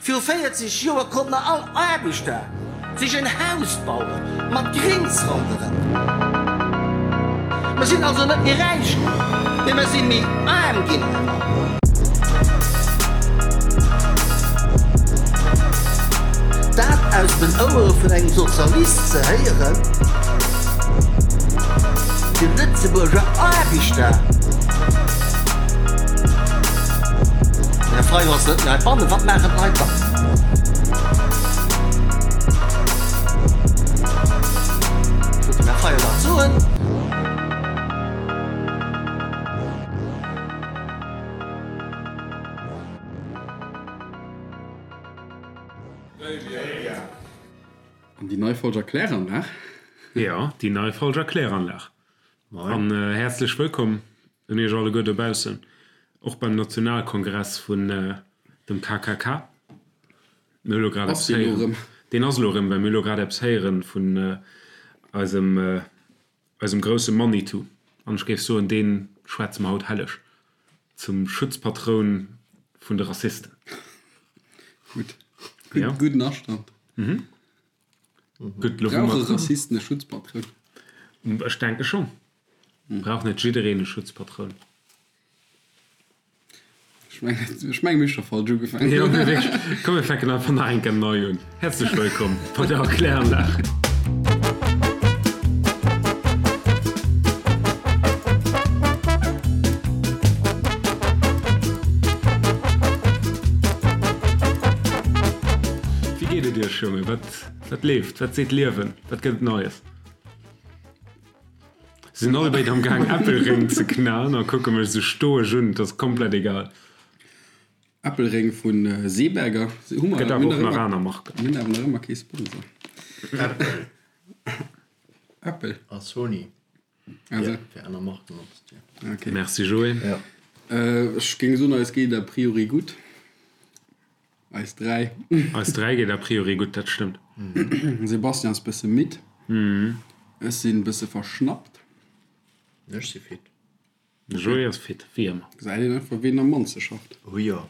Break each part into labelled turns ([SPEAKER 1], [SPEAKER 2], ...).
[SPEAKER 1] Viru 40 Joer konnten all Aarbechter sech en Haus baue mat Grings ronderëm. Mer sinn also net méi räich ginn, mee mer si méi aarm ginn. Dat aus den Ouere vun engem Sozialist ze héieren, de Lëtzebuerger Aarbechter. Den Här Fayot ass net méi heibannen. Wat maachen d'Leit dann? Ech wollt dem Här Fayot dat soen.
[SPEAKER 2] An déi nei Folger Kläranlag.
[SPEAKER 3] Jo, déi nei Folger Kläranlag. An häerzlech wëllkomm un iech alleguer dobaussen, och beim Nationalkongress vun dem KKK. Mir hu lo grad eppes héieren. Deen ass elo erëm, well mir hu lo grad eppes héieren vun eisem, eisem grousse Manitou. An ech géif soen, dee schwätze mer haut helleg zum Schutzpatroun vun de Rassisten.
[SPEAKER 2] Gutt, gudden Astand.
[SPEAKER 3] Gutt, lo wou mer.
[SPEAKER 2] Brauche Rassisten e Schutzpatroun?
[SPEAKER 3] Ech denke schonn. Brauch net jiddereen e Schutzpatroun?
[SPEAKER 2] Ech mengen, ech mengen, mir hu scho falsch ugefaangen.
[SPEAKER 3] Jo, mee wierklech. Komm, mir fänken einfach nach eng Kéier nei un. Häerzlech wëllkomm bei der Erkläranlag. Wéi geet et iech, Jongen? Wat, wat leeft? Wat seet d'Liewen? Wat gëtt et Neies? Se sinn allebéid am Gaang Äppelréng ze knaen a kucke mech esou stoesch un. Et ass komplett egal.
[SPEAKER 2] Äppelréng vu Seeberger.
[SPEAKER 3] Hu mer, Gëtt awer och nach aner Marken.
[SPEAKER 2] Mir hunn awer nach ëmmer kee Sponsor.
[SPEAKER 4] Apple.
[SPEAKER 2] Apple.
[SPEAKER 4] A Sony.
[SPEAKER 2] Also.
[SPEAKER 4] Fir aner Marken opzezielen.
[SPEAKER 2] Okay.
[SPEAKER 3] Merci Joé.
[SPEAKER 4] Ja.
[SPEAKER 2] Ech géing soen, eis geet a priori gutt. Eis 3.
[SPEAKER 3] Eis 3 geet a priori gutt, dat stëmmt.
[SPEAKER 2] Sebastian ass bësse midd. Ech sinn bësse verschnappt.
[SPEAKER 4] Ech si fit.
[SPEAKER 3] De Joé ass fit, wéi ëmmer.
[SPEAKER 2] Gesäit een einfach ween am mannste schafft.
[SPEAKER 4] Oh jo.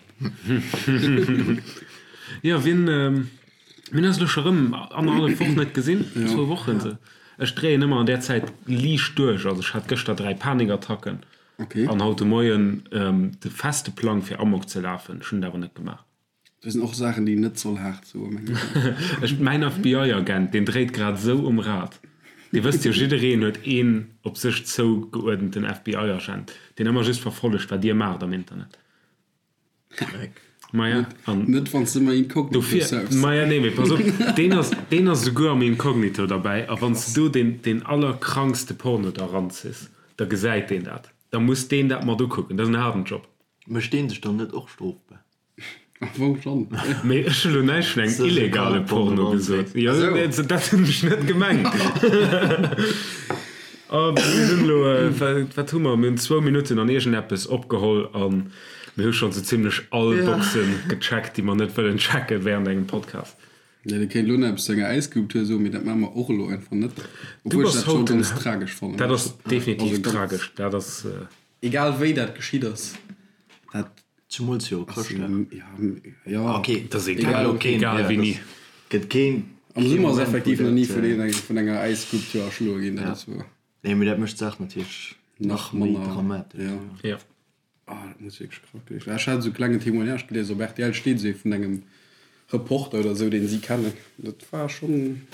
[SPEAKER 3] Jo, wien, mir hunn eis elo scho rëm annerhallef Woch net gesinn, zwou Wochen esou. Ech dréien ëmmer an där Zäit liicht duerch. Also ech hat gëschter 3 Panikattacken. An haut de Moien de feste Plang fir Amok ze lafen. Ech hunn et awer net gemaach.
[SPEAKER 2] Dat sinn och Saachen, déi een net soll haart soen, mengen
[SPEAKER 3] ech. Ech, mäin FBI-Agent, deen dréit grad esou um Rad. Dir wësst jo, jiddereen huet een op sech zougeuerdenten FBI-Agent, deen ëmmer just verfollegt, wat dir maacht am Internet.
[SPEAKER 4] Dreck.
[SPEAKER 3] Maja, an.
[SPEAKER 2] Net wann s de ëmmer inkognito
[SPEAKER 3] Dofir,
[SPEAKER 2] surfs.
[SPEAKER 3] maja, nee, mee pass op, deen ass, deen ass esouguer am Inkognito derbäi, a wann s de do deen, deen allerkrankste Porno da ranziss, da gesäit deen dat. Da muss deen dat mat ukucken. Dat ass en haarden Job.
[SPEAKER 4] Mécht deen sech dann net och strofbar?
[SPEAKER 2] Am Fong schonn.
[SPEAKER 3] Mee ech hu lo näischt vun engem illegale Porno gesot. Jo, dat hunn ech net gemengt. A mir hunn elo, wat hu mer, mir hunn zwou Minutten an iergendeppes opgeholl a mir hu schonn sou zimmlech all Boxen gecheckt, déi mer net wëllen checken wärend engem Podcast.
[SPEAKER 2] Jo, dir kéint elo nach eppes zu enger Äisskulptur soen, mee dat maache mer och elo einfach net.
[SPEAKER 3] Du
[SPEAKER 2] Obwuel ech
[SPEAKER 3] bass
[SPEAKER 2] dat scho
[SPEAKER 3] haut den,
[SPEAKER 2] ganz tragesch fannen.
[SPEAKER 3] dat ass definitiv
[SPEAKER 2] Also ganz.
[SPEAKER 3] tragesch, dat ass.
[SPEAKER 2] Egal wéi dat geschitt ass, dat
[SPEAKER 4] Zumools jo Chrëschtdag.
[SPEAKER 2] Ja,
[SPEAKER 4] Ok,
[SPEAKER 3] Dat ass egal, egal wéini.
[SPEAKER 4] Gëtt keen.
[SPEAKER 2] Am Summer ass effektiv nach ni vun vun enger Äisskulptur erschloe ginn, dat ass wuer.
[SPEAKER 4] Nee, mee dat mécht d'Saach natierlech nach méi dramatesch.
[SPEAKER 2] Ja.
[SPEAKER 3] Ja.
[SPEAKER 2] Ah, dat muss wierklech krank gewiescht sinn. Ech hat esou e klengen Témoignage gelies, op rtl steet esou ee vun engem Reporter oder esou, deen si kennen. Dat war schonn,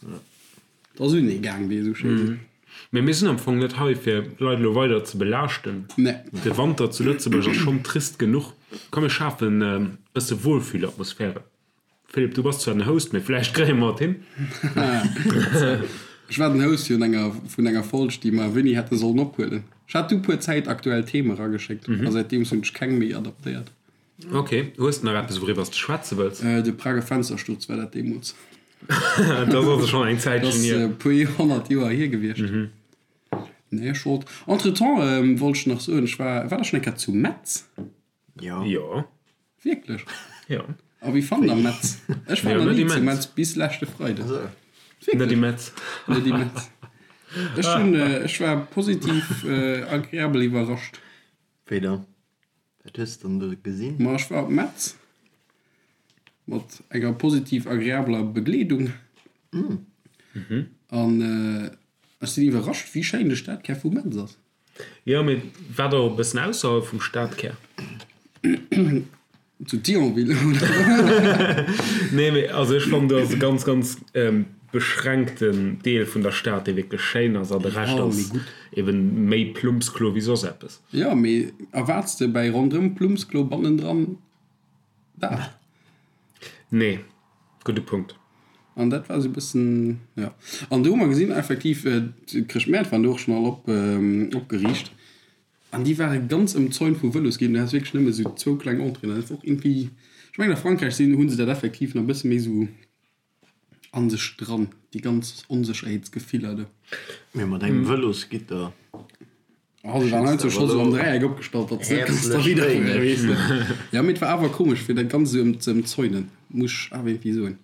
[SPEAKER 2] dat ass un ee gaang, wéi ee esou schéi seet.
[SPEAKER 3] Mee mir sinn am Fong net hei, fir d'Leit elo weider ze belaaschten.
[SPEAKER 2] Nee.
[SPEAKER 3] De Wanter zu Lëtzebuerg ass schonn trist genuch. Komm, mir schafen e bësse Wohlfühlatmosphäre. Philippe, du bass zwar den Host, mee vläicht kréie mer et hin.
[SPEAKER 2] Ech war den Host vun enger, vun enger Folg, déi mer wéini hätte sollen ophuelen. Ech hat du puer zäitaktuell Theme erageschéckt a säitdeems hunn ech keng méi adaptéiert.
[SPEAKER 3] Ok, hues de nach eppes wouriwwer s de schwätze wëlls?
[SPEAKER 2] De Prager Fenstersturz war dat deemools.
[SPEAKER 3] Dat ass also schonn eng Zäitchen hier.
[SPEAKER 2] Dat ass e puer 100 Joer hier gewiescht. Nee, ech wollt, entretemps wollt ech nach soen, ech war, war der schonn eng Kéier zu Metz?
[SPEAKER 4] Jo.
[SPEAKER 3] Jo.
[SPEAKER 2] Wierklech?
[SPEAKER 3] Jo.
[SPEAKER 2] A wéi fannt der Metz? Ech war
[SPEAKER 3] Jo,
[SPEAKER 2] nach
[SPEAKER 3] net
[SPEAKER 2] ni zu
[SPEAKER 3] immens.
[SPEAKER 2] Metz bis leschte Freiden.
[SPEAKER 3] Net
[SPEAKER 2] Wierklech?
[SPEAKER 3] immens.
[SPEAKER 2] Net immens. Ech hunn, ech war positiv agreabel iwwerrascht.
[SPEAKER 4] Wéi dann? Wat hues de dann do gesinn?
[SPEAKER 2] Ma ech war op Metz. Mat enger positiv agreabler Begleedung. An ech sinn iwwerrascht, wéi schéin de Stadkär vu Metz ass.
[SPEAKER 3] Jo, mee war der och e bëssen ausserhalb vum Stadkär?
[SPEAKER 2] Zu Thionville, oder?
[SPEAKER 3] Nee, mee also ech fannen, do ass e ganz, ganz beschränkten Deel vun der Stad, dee wierklech schéin ass, an de Rescht ass eben méi Plumpsklo wéi soss eppes.
[SPEAKER 2] Jo, mee erwaarts de bäi ronderëm Plumpsklo bannendran dat?
[SPEAKER 3] Nee, gudde Punkt.
[SPEAKER 2] An dat war esou e bëssen, jo. An do hu mer gesinn, effektiv, d'Chrëschtmäert waren do och schonn all op, opgeriicht. An déi ware ganz ëmzäunt vu Vëlosgeen. Du has wierklech nëmme esou zwou kleng Entréeën. Dat ass och iergendwéi, ech mengen a Frankräich sinn, hu se dat effektiv nach e bësse méi esou a sech dran, déi ganz Onsécherheetsgefiller do.
[SPEAKER 4] Mee mat engem Vëlosgitter
[SPEAKER 2] Oh, se waren heiansdo scho sou am Dräieck opgestallt, datt se net kanns derwidder fueren, weess de. Jo, mee et war awer komesch, fir dat Ganzt esou ze ëmzäunen, muss ech awer iergendwéi soen.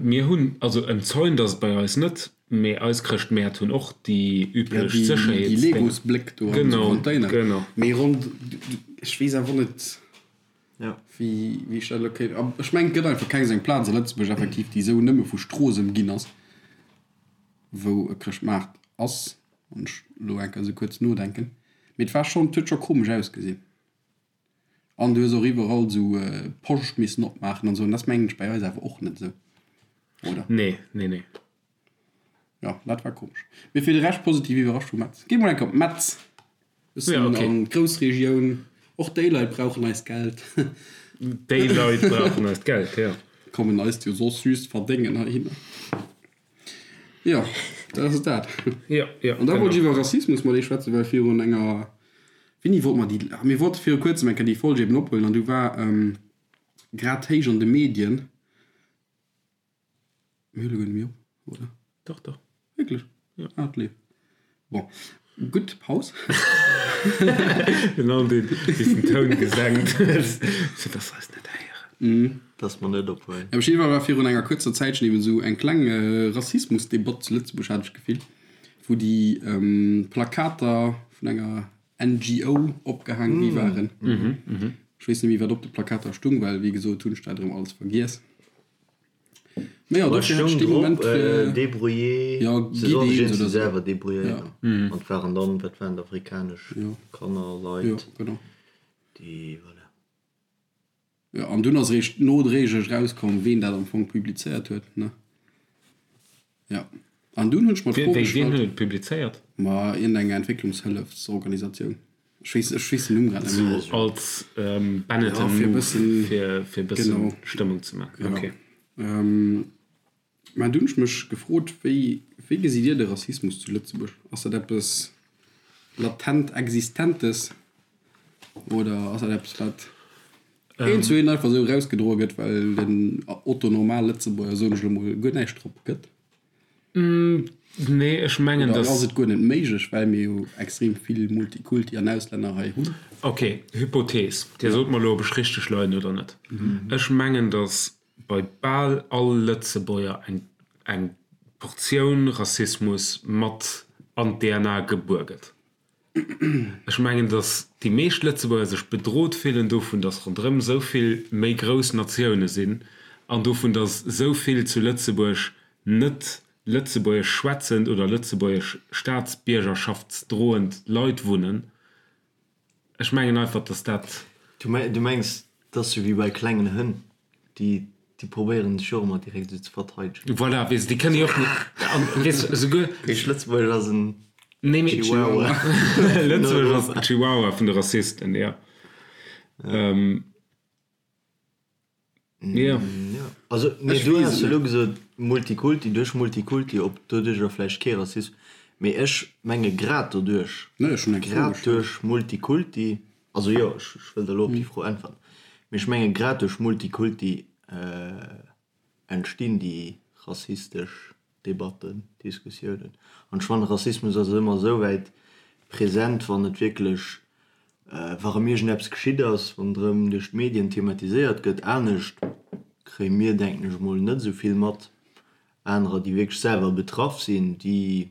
[SPEAKER 3] Mir hunn, also ëmzäunt ass et bei eis net, mee eis Chrëschtmäert hunn och déi üblech Sécherheetsdénger.
[SPEAKER 2] Déi Legosbléck do an esou Container.
[SPEAKER 3] Genau, genau.
[SPEAKER 2] Mee rond, ech weess awer net, wéi ech dat elo kéint, ech mengen, et gëtt einfach keng esou eng Plaz a Lëtzebuerg effektiv, déi esou nëmme vu Strooss ëmginn ass. wou e Chrëschtmaart ass, wann ech elo eng Kéier esou kuerz nodenken, mee et war schonn, et huet scho komesch ausgesinn. An du hues och iwwerall esou Poscht missen opmaachen an esou, an dat ass mengen ech bei eis awer och net esou, oder?
[SPEAKER 3] Nee, nee, nee.
[SPEAKER 2] Jo, dat war komesch. Mee fir de Rescht positiv iwwerrascht vu Metz. Gi mol eng Kéier op Metz, bëssen an d'Groussregioun, och déi Leit brauchen eist Geld.
[SPEAKER 3] Déi Leit brauchen eist Geld, jo.
[SPEAKER 2] Kommen eist jo soss just verdéngen heihinner. Jo, dat ass dat.
[SPEAKER 3] Jo, jo,
[SPEAKER 2] An da wollt ech iwwer Rassismus mat iech schwätzen, well virun enger, wéini wollte mer déi, ah mir wollte viru kuerzem eng Kéier déi Folg eben ophuelen an du war grad héich an de Medien, mir huele guer net méi op, oder?
[SPEAKER 3] Dach, dach.
[SPEAKER 2] Wierklech?
[SPEAKER 3] Jo.
[SPEAKER 2] Ah, et leeft. Bon, gutt, Paus.
[SPEAKER 3] Den Aldi bis den Toun gesenkt huet, fir dass se eis net héieren.
[SPEAKER 4] Dass mer net ophuelen.
[SPEAKER 2] Op jidde Fall war virun enger kuerzer Zäitchen eben esou eng kleng Rassismusdebatt zu Lëtzebuerg, hat ech d'Gefill, wou déi Plakater vun enger NGO opgehaang gi waren. Ech weess net méi, wat op de Plakater stung, well wéi gesot hunn ech dat erëm alles vergiess. Mee jo, dofir hat ech dee Moment
[SPEAKER 4] fir. Débrouillé,
[SPEAKER 2] ja,
[SPEAKER 4] se sollen sech iergendwéi selwer débrouilléieren. An et waren dann, wat waren et, afrikanesch Kanner, Leit, déi, voilà.
[SPEAKER 2] Jo, an dunn ass eréischt nodréiglech erauskomm, ween dat am Fong publizéiert huet, ne? Jo. An dunn hunn ech mer d'Fro
[SPEAKER 3] gestallt. Ween huet et publizéiert?
[SPEAKER 2] Ma iergendeng Entwécklungshëllefsorganisatioun. Ech weess, ech weess den Numm grad net
[SPEAKER 3] méi. Sou als Benetton Move, fir e bëssen Stëmmung ze maachen.
[SPEAKER 2] Ok. Mä dunn hunn ech mech gefrot, wéi, wéi gesitt Dir de Rassismus zu Lëtzebuerg? Ass dat eppes latent Existentes oder ass dat eppes, wat eent zu eent einfach esou erausgedroe gëtt, well den Otto Normal Lëtzebuerger, soen ech elo mol, guer näischt drop gëtt?
[SPEAKER 3] Nee, ech mengen,
[SPEAKER 2] dass. Oder ass et guer net méiglech, well mir jo extrem vill Multikulti an Auslänner hei hunn?
[SPEAKER 3] Ok, Hypothees, Dir sot mer elo, ob ech richteg leien oder net. Ech mengen, dass bei bal all Lëtzebuerger eng eng Portioun Rassismus mat an d'DNA gebuer gëtt. Ech mengen, datt déi meescht Lëtzebuerger sech bedrot fillen dovun, datt ronderëm esou vill méi grouss Natioune sinn an dovun, datt esou vill zu Lëtzebuerg net lëtzebuergesch schwätzend oder lëtzebuergesch staatsbiergerschaftsdroend Leit wunnen. Ech mengen einfach, dass dat.
[SPEAKER 4] Du mengs, et ass sou wéi bei klengen Hënn, déi probéieren sech och ëmmer direkt esou ze verteidegen.
[SPEAKER 3] Voilà, weess de, déi kënne jo och net, an weess de, esouguer.
[SPEAKER 4] Heescht Lëtzebuerg ass en Chihuahua.
[SPEAKER 3] Lëtzebuerg ass den Chihuahua vun de Rassisten, jo.
[SPEAKER 4] Jo. Also, mee du has elo gesot Multikulti, duerch Multikulti, ob doduercher vläicht kee Rassismus, mee ech menge grad doduerch, grad duerch Multikulti, also jo, ech wëll der elo op déi Fro äntweren, mee ech menge grad duerch Multikulti entstinn déi rassistesch Debatten, Diskussiounen. An ech fannen, Rassismus ass ëmmer esou wäit present, wann et wierklech, wa rëm iergendeppes geschitt ass, wann et rëm duerch d'Medien thematiséiert gëtt. Anescht kréie mir, denken ech emol, net esou vill mat. Anerer, déi wierklech selwer betraff sinn, déi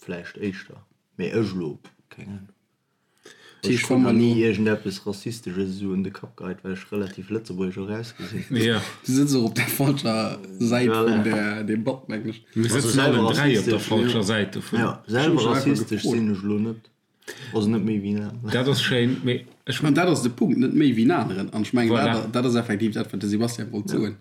[SPEAKER 4] vläicht éischter. Mee ech elo, keng Ahnung. Ech krut nach ni iergendeppes Rassistesches esou un de Kapp geheit, well ech relativ lëtzebuergesch och ausgesinn.
[SPEAKER 2] Jo. Du sëtz och op der falscher Säit vun der Debatt, mengen ech.
[SPEAKER 3] Mir sëtzen allen 3 op der falscher Säit dovun.
[SPEAKER 4] Jo, selwer rassistesch sinn ech elo net. Also net méi wéi en aneren.
[SPEAKER 3] Dat ass schéin, mee
[SPEAKER 2] ech. An dat ass de Punkt, net méi wéi en aneren. An ech mengen, dat, dat ass effektiv dat, wat de Sebastian wollt soen.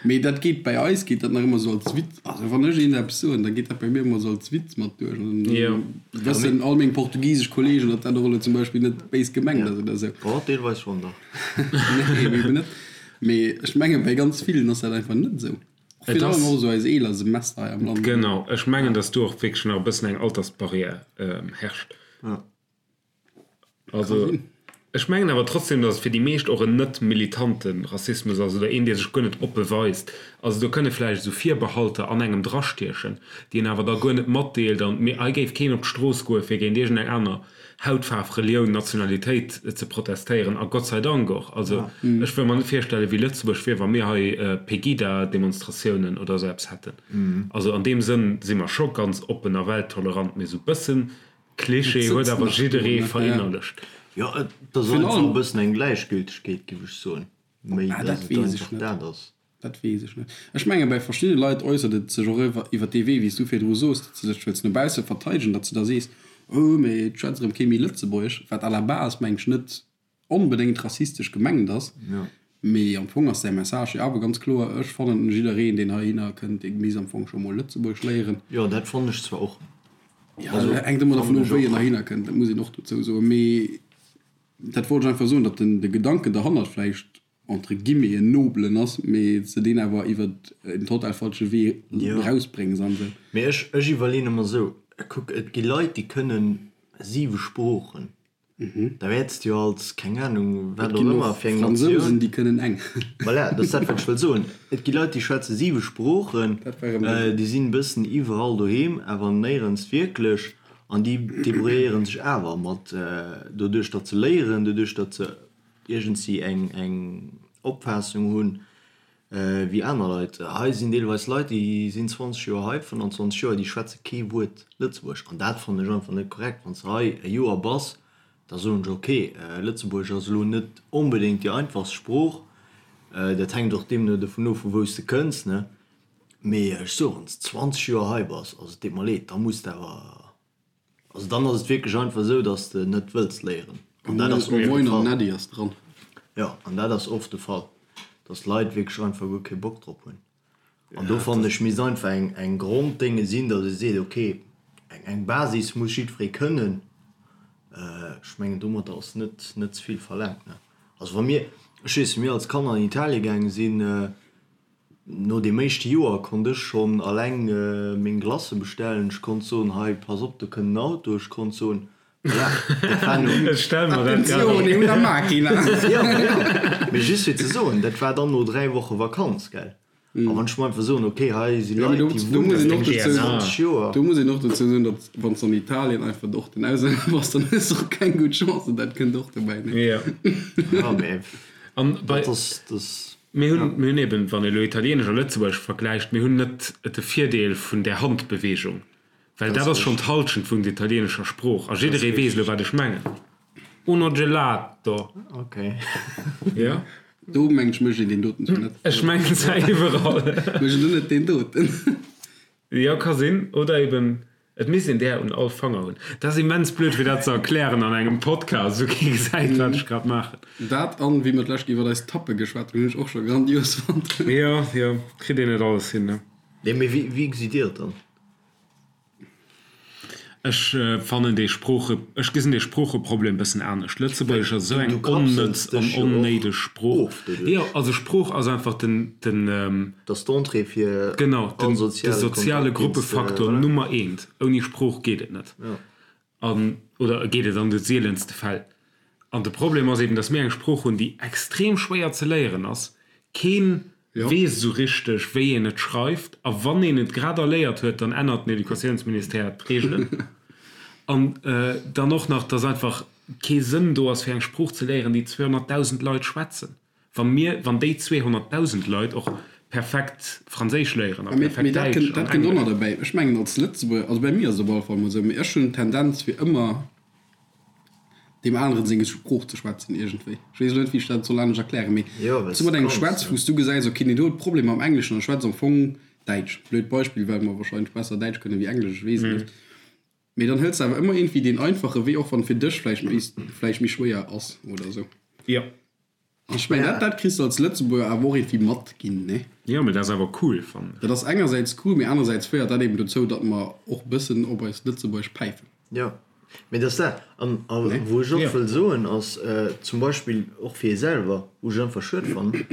[SPEAKER 2] Mee dat geet bei eis geet dat nach ëmmer esou als Witz. Also wann ech eent eppes soen, da geet dat bei mir ëmmer esou als Witz mat duerch. An dann wëssen all meng portugisesch Kollegen, datt dat och elo zum Beispill net béis gemengt ass oder esou.
[SPEAKER 4] Oh, deelweis schonn dach.
[SPEAKER 2] Nee, eben net. Mee ech mengen, bei ganz villen ass dat einfach net esou. Och virun allem och esou eis eeler Semester hei am Land.
[SPEAKER 3] Genau, ech mengen, datt do och wierklech nach e bëssen eng Altersbarriär herrscht. Also ech mengen awer trotzdem, datt et fir déi meescht och en net militante Rassismus ass oder een, dee sech guer net oppe weist. Also do kënne vläicht esou Virbehalter an engem drastiechen, déi een awer da guer net matdeelt. An mee hei géif keen op d'Strooss goe fir géint iergendeng aner Hautfaarf, Relioun, Nationalitéit ze protestéieren. A Gott sei Dank och. Also ech wëll mer net virstellen, wéi Lëtzebuerg wier, wa mir hei Pegida-Demonstratiounen oder esou eppes hätten. Also an deem Sënn si mer scho ganz oppen a welttolerant, mee esou bëssen Klischee huet awer jidderee verinnerlecht.
[SPEAKER 4] Jo, et ass einfach e bëssen eng Gläichgültegkeet, giff ech soen, méi
[SPEAKER 2] dass et einfach dat ass. Dat weess ech net. Ech menge bei verschiddene Leit äussert et sech och iwwer dee Wee, wéi s du virdru soos, datt se sech wëlls no bausse verteidegen, datt s de da sees, oh, mee et schwätzt erëm kee méi Lëtzebuergesch, wat à la base, meng ech, net onbedéngt rassistesch gemengt ass, mee am Fong ass säi Message jo awer ganz kloer, ech fannen, jiddereen, deen heihinner kënnt, dee misst am Fong scho mol Lëtzebuergesch léieren.
[SPEAKER 4] Jo, dat fannen ech zwar och.
[SPEAKER 2] Jo, dat hänkt ëmmer dervun of, wéi en heihinner kënnt, dat muss een och dozou soen. Mee dat wollt ech einfach soen, datt den de Gedanken derhannert vläicht entre guillemets en nobelen ass, mee s de deen awer iwwer en total falsche Wee erausbréngs an esou.
[SPEAKER 4] Mee ech, ech iwwerleeën ëmmer esou, kuck, et gi Leit, déi kënnen siwe Sproochen. Da wäerts de jo als, keng Anung, wat och ëmmer fir eng
[SPEAKER 2] Natioun. Fransousen, déi kënnen eng.
[SPEAKER 4] Voilà, dat ass dat, wat ech wëll soen. Et gi Leit, déi schwätze siwe Sproochen, déi sinn e bëssen iwwerall doheem, awer néierens wierklech, an déi debrouilléiere sech awer mat, doduerch datt se léieren, doduerch datt se iergendwéi eng Opfaassung hunn, Wéi aner Leit. Hei sinn deelweis Leit, déi sinn 20 Joer hei, 25 Joer, déi schwätze kee Wuert Lëtzebuergesch. An dat fannen ech einfach net korrekt. Wann s de hei e Joer bass, da soen ech, ok, Lëtzebuergesch ass elo net onbedéngt déi einfachst Sprooch. Dat hänkt och deemno dovun of, vu wou s de kënns, ne? Mee ech soen, wann s de 20 Joer hei bass, also et deet mer leed, da muss de awer Also dann ass et wierklech einfach esou, dass de net wëlls léieren. An dat ass oft de
[SPEAKER 2] Fall. Moin ass dran.
[SPEAKER 4] Jo, an dat ass oft de Fall, dass d'Leit wierklech einfach guer kee Bock drop hunn. An do fannen ech, misst einfach eng eng Gronddénge sinn, dass ee seet, okay, eng eng Basis muss jiddweree kënnen. Ech mengen, domadder ass net net ze vill verlaangt, ne? Also wa mir, ech weess, wéi mir als Kanner an Italie gaange sinn, No deem éischte Joer konnt ech schonn alleng meng Glacë bestellen. Ech konnt soen, hei, pass op, do kënnt en Auto. Ech konnt soen, voilà, dat war no.
[SPEAKER 3] Ech stelle mer dat grad
[SPEAKER 2] Attenzione, una macchina!
[SPEAKER 4] Jo, voilà. Mee just fir ze soen, dat war dann no 3 Woche Vakanz, gell. A wann ech mer einfach soen, okay, hei si Leit, déi wunnen 20 Joer.
[SPEAKER 2] Do muss een och dozou soen, datt wann s de an Italien einfach och den Auslänner bass, dann hues de och keng gutt Chancen. Dat kënnt och dobäi, ne?
[SPEAKER 3] Jo.
[SPEAKER 4] Jo, mee
[SPEAKER 3] An bei.
[SPEAKER 4] dat ass, dat.
[SPEAKER 3] Mir hunn, mir hunn eben, wann ee elo Italieenesch a Lëtzebuergesch vergläicht, mir hunn net de Virdeel vun där Handbewegung, well dat ass schonn d'Halschent vun der italieenescher Sprooch a jidderee weess elo, wat ech mengen. Uno gelato.
[SPEAKER 4] Okay.
[SPEAKER 3] Jo.
[SPEAKER 2] Do mengen ech mécht een deen doten zwar net.
[SPEAKER 3] Ech mengen zwar iwwerall.
[SPEAKER 2] Mécht een do net deen doten?
[SPEAKER 3] Jo, ka sinn. Oder eben, et misst een där un all Fanger hunn. Dat ass immens blöd fir dat ze erklären an engem Podcast, wou kee gesäit wat ech grad maachen.
[SPEAKER 2] Dat an wéi mer d'lescht iwwert eis Tappe geschwat hunn, hunn ech och scho grandios fonnt.
[SPEAKER 3] Jo, jo, kritt een net alles hin, ne?
[SPEAKER 4] Nee, mee wéi gesitt Dir et dann?
[SPEAKER 3] Ech fannen dee Sprooche, ech gesinn dee Sproocheproblem e bëssen anescht. Lëtzebuergesch ass esou eng onnëtz an onnéideg Sprooch. Jo, also Sprooch ass einfach den, den.
[SPEAKER 4] Dat ass d'Entrée fir
[SPEAKER 3] genau, den, de soziale Gruppefaktor Nummer eent. Ouni Sprooch geet et net. An, oder geet et an de sielenste Fäll. An de Problem ass eben, datt mir eng Sprooch hunn, déi extrem schwéier ze léieren ass. Keen weess esou richteg, wéi een et schreift. A wann een et grad erléiert huet, dann ännert den Educatiounsministère d'Reegelen. An dann och nach, datt einfach kee Sënn do ass, fir eng Sprooch ze léieren, déi 200.000 Leit schwätzen. Wa mir, wann déi 200.000 Leit och perfekt Franséisch léieren a perfekt
[SPEAKER 2] Däitsch an Englesch. Dat kënnt och nach derbäi. Ech mengen als Lëtzebuerger, also bei mir ass et op alle Fall emol esou, mee ech hunn d'Tendenz fir ëmmer. Deem aneren seng Sprooch ze schwätzen iergendwéi. Ech weess elo net, wéi ech dat soll anescht erklären, mee wann s du mat engem schwätz, wou s du gesäis, okay, deen do huet Problemer mam Engleschen an schwätzt am Fong Däitsch, blöd Beispill, well mer wahrscheinlech besser Däitsch kënnen wéi Englesch, ech weess et net, mee dann hëls de awer ëmmer iergendwéi deen einfache Wee, och wann et fir dech vläicht méi, vläicht méi schwéier ass oder esou.
[SPEAKER 3] Jo.
[SPEAKER 2] Ech mengen, dat, dat kriss de als Lëtzebuerger awer och iergendwéi mat ginn, ne?
[SPEAKER 3] Jo, mee dat ass awer cool, fannen ech.
[SPEAKER 2] Dat ass engersäits cool, mee anersäits féiert dat eben dozou, datt mer och bëssen op eist Lëtzebuergesch päifen.
[SPEAKER 4] Jo, mee dat ass dat. An, a wou ech och wëll soen, ass zum Beispill och fir ee selwer, wou ech einfach schued fannen,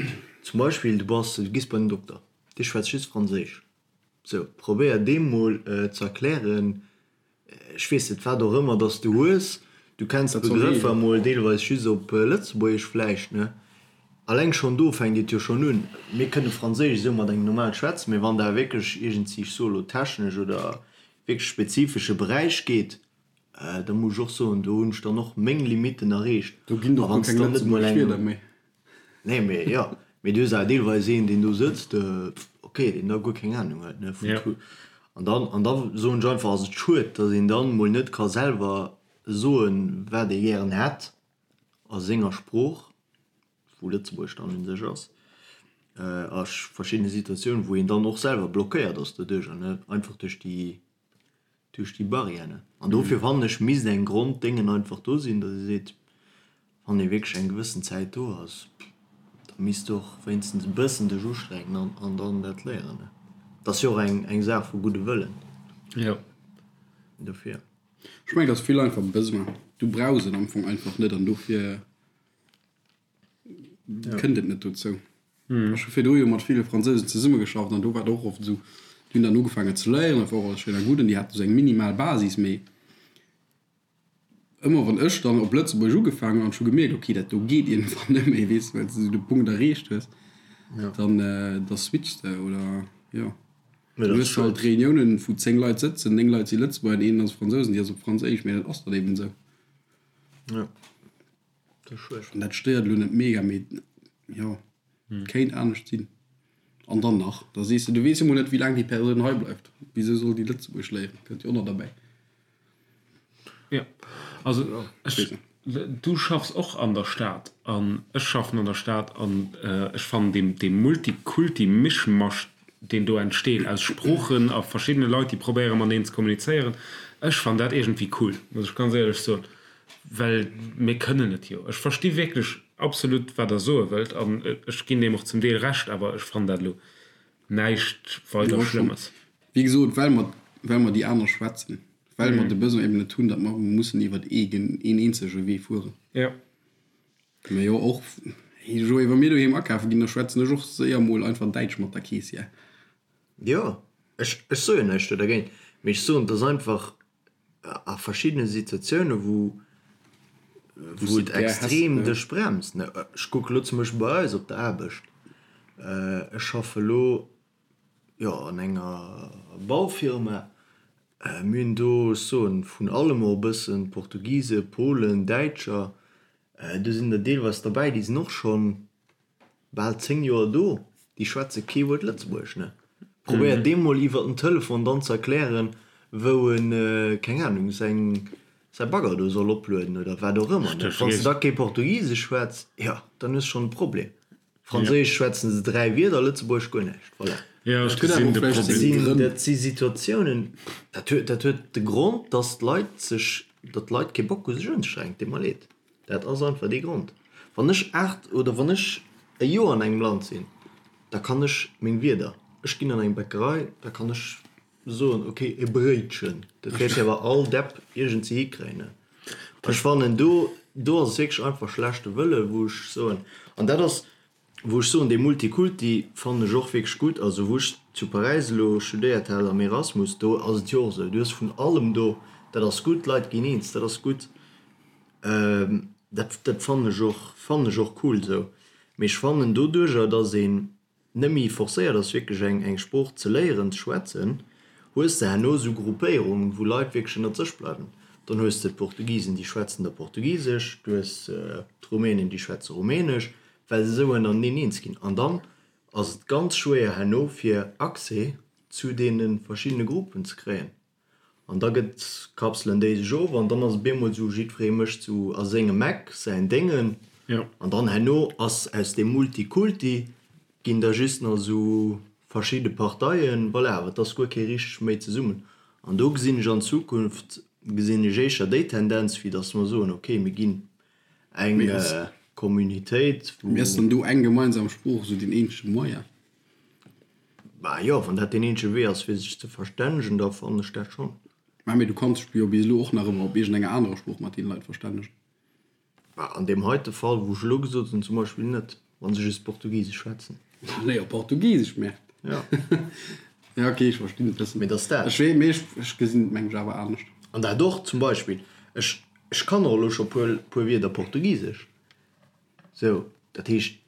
[SPEAKER 4] zum Beispill, du bass, du gees bei den Dokter, dee schwätzt just Franséisch. Sou, probéier deem mol ze erklären, ech weess net, wat och ëmmer dass du hues, du kenns d'Begrëffer emol deelweis just op Lëtzebuergesch vläicht, ne? Alleng schonn do fänkt et jo schonn un. Mir kënne Franséisch esou mat engem normal schwätzen, mee wann der wierklech iergendwéi, ech soe lo technesch oder wierklech spezifesche Beräich geet, da muss ech och soen, do hunn ech dann och meng Limitten erreecht.
[SPEAKER 2] Do ginn
[SPEAKER 4] et
[SPEAKER 2] och guer keng lëtzebuergesch Wierder méi.
[SPEAKER 4] Nee, mee jo, mee du hues awer deelweis een, deen do sëtzt, ok, deen da guer keng Anung huet, ne, vun Tool. An dann, an da soen ech einfach, ass et schued, datt een dann mol net ka selwer soen, wat ee gären hätt a senger Sprooch, wou Lëtzebuergesch dann un sech ass, a verschiddene Situatiounen, wou een dann och selwer blockéiert ass doduercher, ne, einfach duerch déi Duerch déi Barrièren. An dofir fannen ech, misst eng Gronddéngen einfach do sinn, datt ee seet, wann ee wierklech eng gewëssen Zäit do ass, da misst de och wéinstens e bëssen dech ustrengen an an dann dat léieren. Et ass jo och eng eng Saach vu gudde Wëllen.
[SPEAKER 3] Jo.
[SPEAKER 4] Dofir.
[SPEAKER 2] Ech mengen, et ass vill einfach Besoin. Du brauchs et am Fong einfach net an dofir kënnt et net dozou. Ech hu virdru jo mat ville Fransousen zesummegeschafft an do war et och oft esou, déi hunn dann ugefaangen ze léieren, dat war och alles schéin a gutt an déi haten esou eng minimal Basis, mee ëmmer wann ech dann op Lëtzebuergesch ugefaangen hunn an ech hu gemierkt, okay, dat do geet iergendwann net méi, weess de, well s de esou de Punkt erreecht hues, dann da switchs de oder jo. Dann hues de halt Reuniounen, wou 10 Leit sëtzen, 9 Leit si Lëtzebuerger an een ass Fransous an déi ass op Franséisch, mee dat ass dann eben esou. An dat stéiert elo net mega, mee jo, et kéint anescht sinn. An dann nach, da sees de, du weess jo mol net, wéi laang déi Persoun hei bleift. Wisou soll déi Lëtzebuergesch léieren? Kënnt jo och nach derbäi.
[SPEAKER 3] Jo, also ech, du schaffs och an der Stad an ech schaffen an der Stad an ech fannen dee, dee Multikulti-Mischmasch, deen do entsteet aus Sproochen a verschiddene Leit, déi probéiere mateneen ze kommunizéieren, ech fannen dat iergendwéi cool, muss ech ganz éierlech soen. Well mir kënnen et jo. Ech versti wierklech absolut, wat Der soe wëllt, an ech ginn deem och zum Deel Recht, awer ech fannen dat elo näischt weider Schlëmmes.
[SPEAKER 2] Wéi gesot, well mer, well mer déi aner schwätzen, well mer de Besoin eben net hunn, datt mer mussen iwwert ee, een eenzege Wee fueren.
[SPEAKER 3] Jo.
[SPEAKER 2] Mä jo, och, hey Joé, wa mir doheem akafe ginn, da schwätzen ech och séier mol einfach Däitsch mat der Keessière.
[SPEAKER 4] Jo, ech, ech soe jo näischt do dergéint, mee ech soen, et ass einfach a verschiddene Situatioune wou wou et extrem dech bremst. Ech kucke lo zum Beispill bei eis op der Aarbecht, ech schaffe lo jo an enger Baufirma, mir hunn do, ech soen vun allem och e bëssen, Portugise, Polen, Däitscher, do sinn der deelweis derbäi, déi sinn och schonn Bal 10 Joer do, déi schwätze kee Wuert Lëtzebuergesch, ne? Probéier deem mol iwwer den Telefon dann ze erklären, wou en, keng Ahnung, säin, säi Bagger do soll oplueden oder wat och ëmmer, ne? Wann s de da kee Portugisesch schwätz, jo, dann hues schonn e Problem. Franséisch schwätzen se 3 Wierder, Lëtzebuergesch guer näischt, voilà.
[SPEAKER 3] Jo, ech gesinn de Problem.
[SPEAKER 4] Dat si Situatiounen, dat huet, dat huet de Grond, dass d'Leit sech, datt d'Leit kee Bock hu sech unzestrengen, deet mer leed. Dat ass einfach dee Grond. Wann ech 8 oder wann ech e Joer an engem Land sinn, da kann ech meng Wierder, ech ginn an eng Bäckerei, da kann ech soen, ok, e Bréitchen. Dat wäert jo awer all Depp iergendwéi hikréien. Ech fannen, do, do ass et wierklech einfach schlechte Wëlle wou ech soen, an dat ass, wou ech soen, dee Multikulti fannen ech och wierklech gutt. Also wou ech zu Paräis elo studéiert hat am Erasmus, do ass et jo och esou, du hues vun allem do, dat ass gutt, d'Leit ginn eens, dat ass gutt. Dat dat fannen ech och fannen ech och cool esou. Mee ech fannen doduercher dass een net méi forcéiert ass wierklech eng eng Sprooch ze léieren ze schwätzen, hues de herno esou Gruppéierungen wou Leit wierklech ënnert sech bleiwen. Dann hues de d'Portugisen déi schwätzen da Portugisesch, du hues d'Rumänen déi schwätze Rumänesch, well se esou ënnerteneen eens ginn. An dann ass et ganz schwéier herno fir Accès zu deene verschiddene Gruppen ze kréien. An da gëtt, kapselen déi sech of an dann ass et bemol esou, jiddweree mécht sou a sengem Eck säin Déngen. An dann herno ass aus deem Multikulti ginn da just nach esou verschidde Parteien, voilà, awer et ass guer kee richteg méi zesummen. An do gesinn ech an Zukunft, gesinn ech éischer déi Tendenz, wéi datt mer soen, okay, mir ginn eng Communitéit,
[SPEAKER 2] wou. Mee ass dann do eng gemeinsam Sprooch esou deen eenzege Moyen?
[SPEAKER 4] Bah jo, wann dat deen eenzege Wee ass fir sech ze verstännegen, da fannen ech dat schonn.
[SPEAKER 2] Mä mee du kanns dech jo bis elo och nach ëmmer op iergendenger anerer Sprooch mat deene Leit verstännegen.
[SPEAKER 4] Bah an deem heite Fall wou ech elo gesot hunn zum Beispill net, wa se just Portugisesch schwätzen.
[SPEAKER 2] Léier Portugisesch, Merde.
[SPEAKER 4] Ja.
[SPEAKER 2] Ja ok, ech verstinn et bëssen.
[SPEAKER 4] Mee dass dat.
[SPEAKER 2] Ech wee, mee ech, ech gesinn et meng ech awer anescht.
[SPEAKER 4] An dat och zum Beispill, ech, ech kann och elo scho puer, puer Wierder Portugisesch. Sou, dat heescht.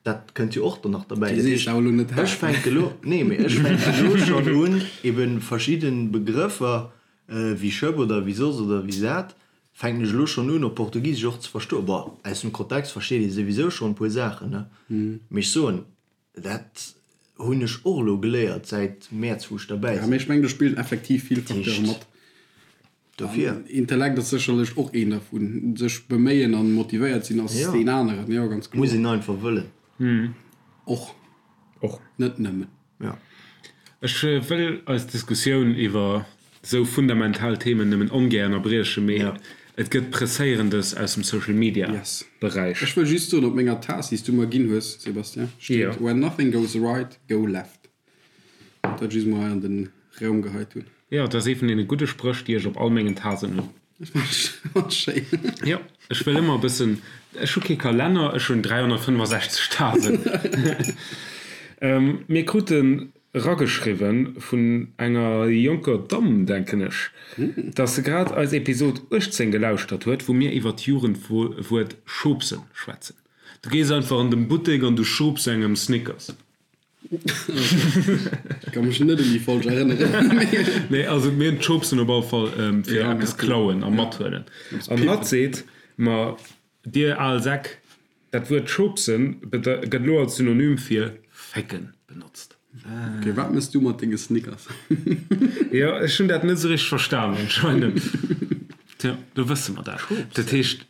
[SPEAKER 4] Dat kënnt jo och dann nach derbäi. Dat heescht, ech fänke elo, nee, mee ech fänken elo schonn un, ebe verschidde Begrëffer wéi Schëpp oder wéi soss oder wéi sat, fänken ech elo schonn un, op Portugisesch och ze verstoen. Bon, aus dem Kontext versteet ee souwisou schonn e puer Saachen, ne? Mee ech soen, dat hunn ech och elo geléiert säit Mäerz, wou ech derbäi
[SPEAKER 2] sinn. Ja, mee ech mengen, do spillen effektiv vill Facteure mat.
[SPEAKER 4] Dofir.
[SPEAKER 2] Intellekt ass sécherlech och een dervun. Sech beméien an motivéiert sinn ass deen aneren, jo ganz
[SPEAKER 4] kloer. Muss een einfach wëllen.
[SPEAKER 2] Och.
[SPEAKER 3] Och.
[SPEAKER 2] Net nëmmen.
[SPEAKER 3] Jo. Ech wëll eis Diskussioun iwwer esou fundamental Themen nëmmen ongär ënnerbriechen, mee et gëtt Presséierendes aus dem Social Media Beräich.
[SPEAKER 2] Ech wëll just soen, op menger Taass, déi s du mer ginn hues, Sébastien, steet, When nothing goes right, go left. Dat just mol hei an den Raum geheit hunn.
[SPEAKER 3] Jo, dat ass ee vun deene gudde Spréch, déi ech op all mengen Tasen hunn.
[SPEAKER 2] Dat ass schéin.
[SPEAKER 3] Jo, ech wëll ëmmer e bëssen, ech hu kee Kalenner, ech hunn 365 Tasen. Mir kruten erageschriwwen vun enger jonker Damm, denken ech, dass se grad eis Episod 18 gelauschtert huet, wou mir iwwer d'Jugendwuert schubsen schwätzen. Du gees einfach an den Buttek an du schubs engem Snickers.
[SPEAKER 2] Ech ka mech net un déi Folg erënneren.
[SPEAKER 3] Nee, also mir hunn d'Schubsen op alle Fall fir eppes klauen a mathuelen. An hatt seet, Ma dir al Säck, dat Wuert schubsen gëtt elo als Synonym fir fécken benotzt.
[SPEAKER 2] Ok, wat mëss du mat denge Snickers?
[SPEAKER 3] Jo, ech hunn dat net esou richteg verstanen anscheinend. Tja, do wësse mer dat. Dat heescht,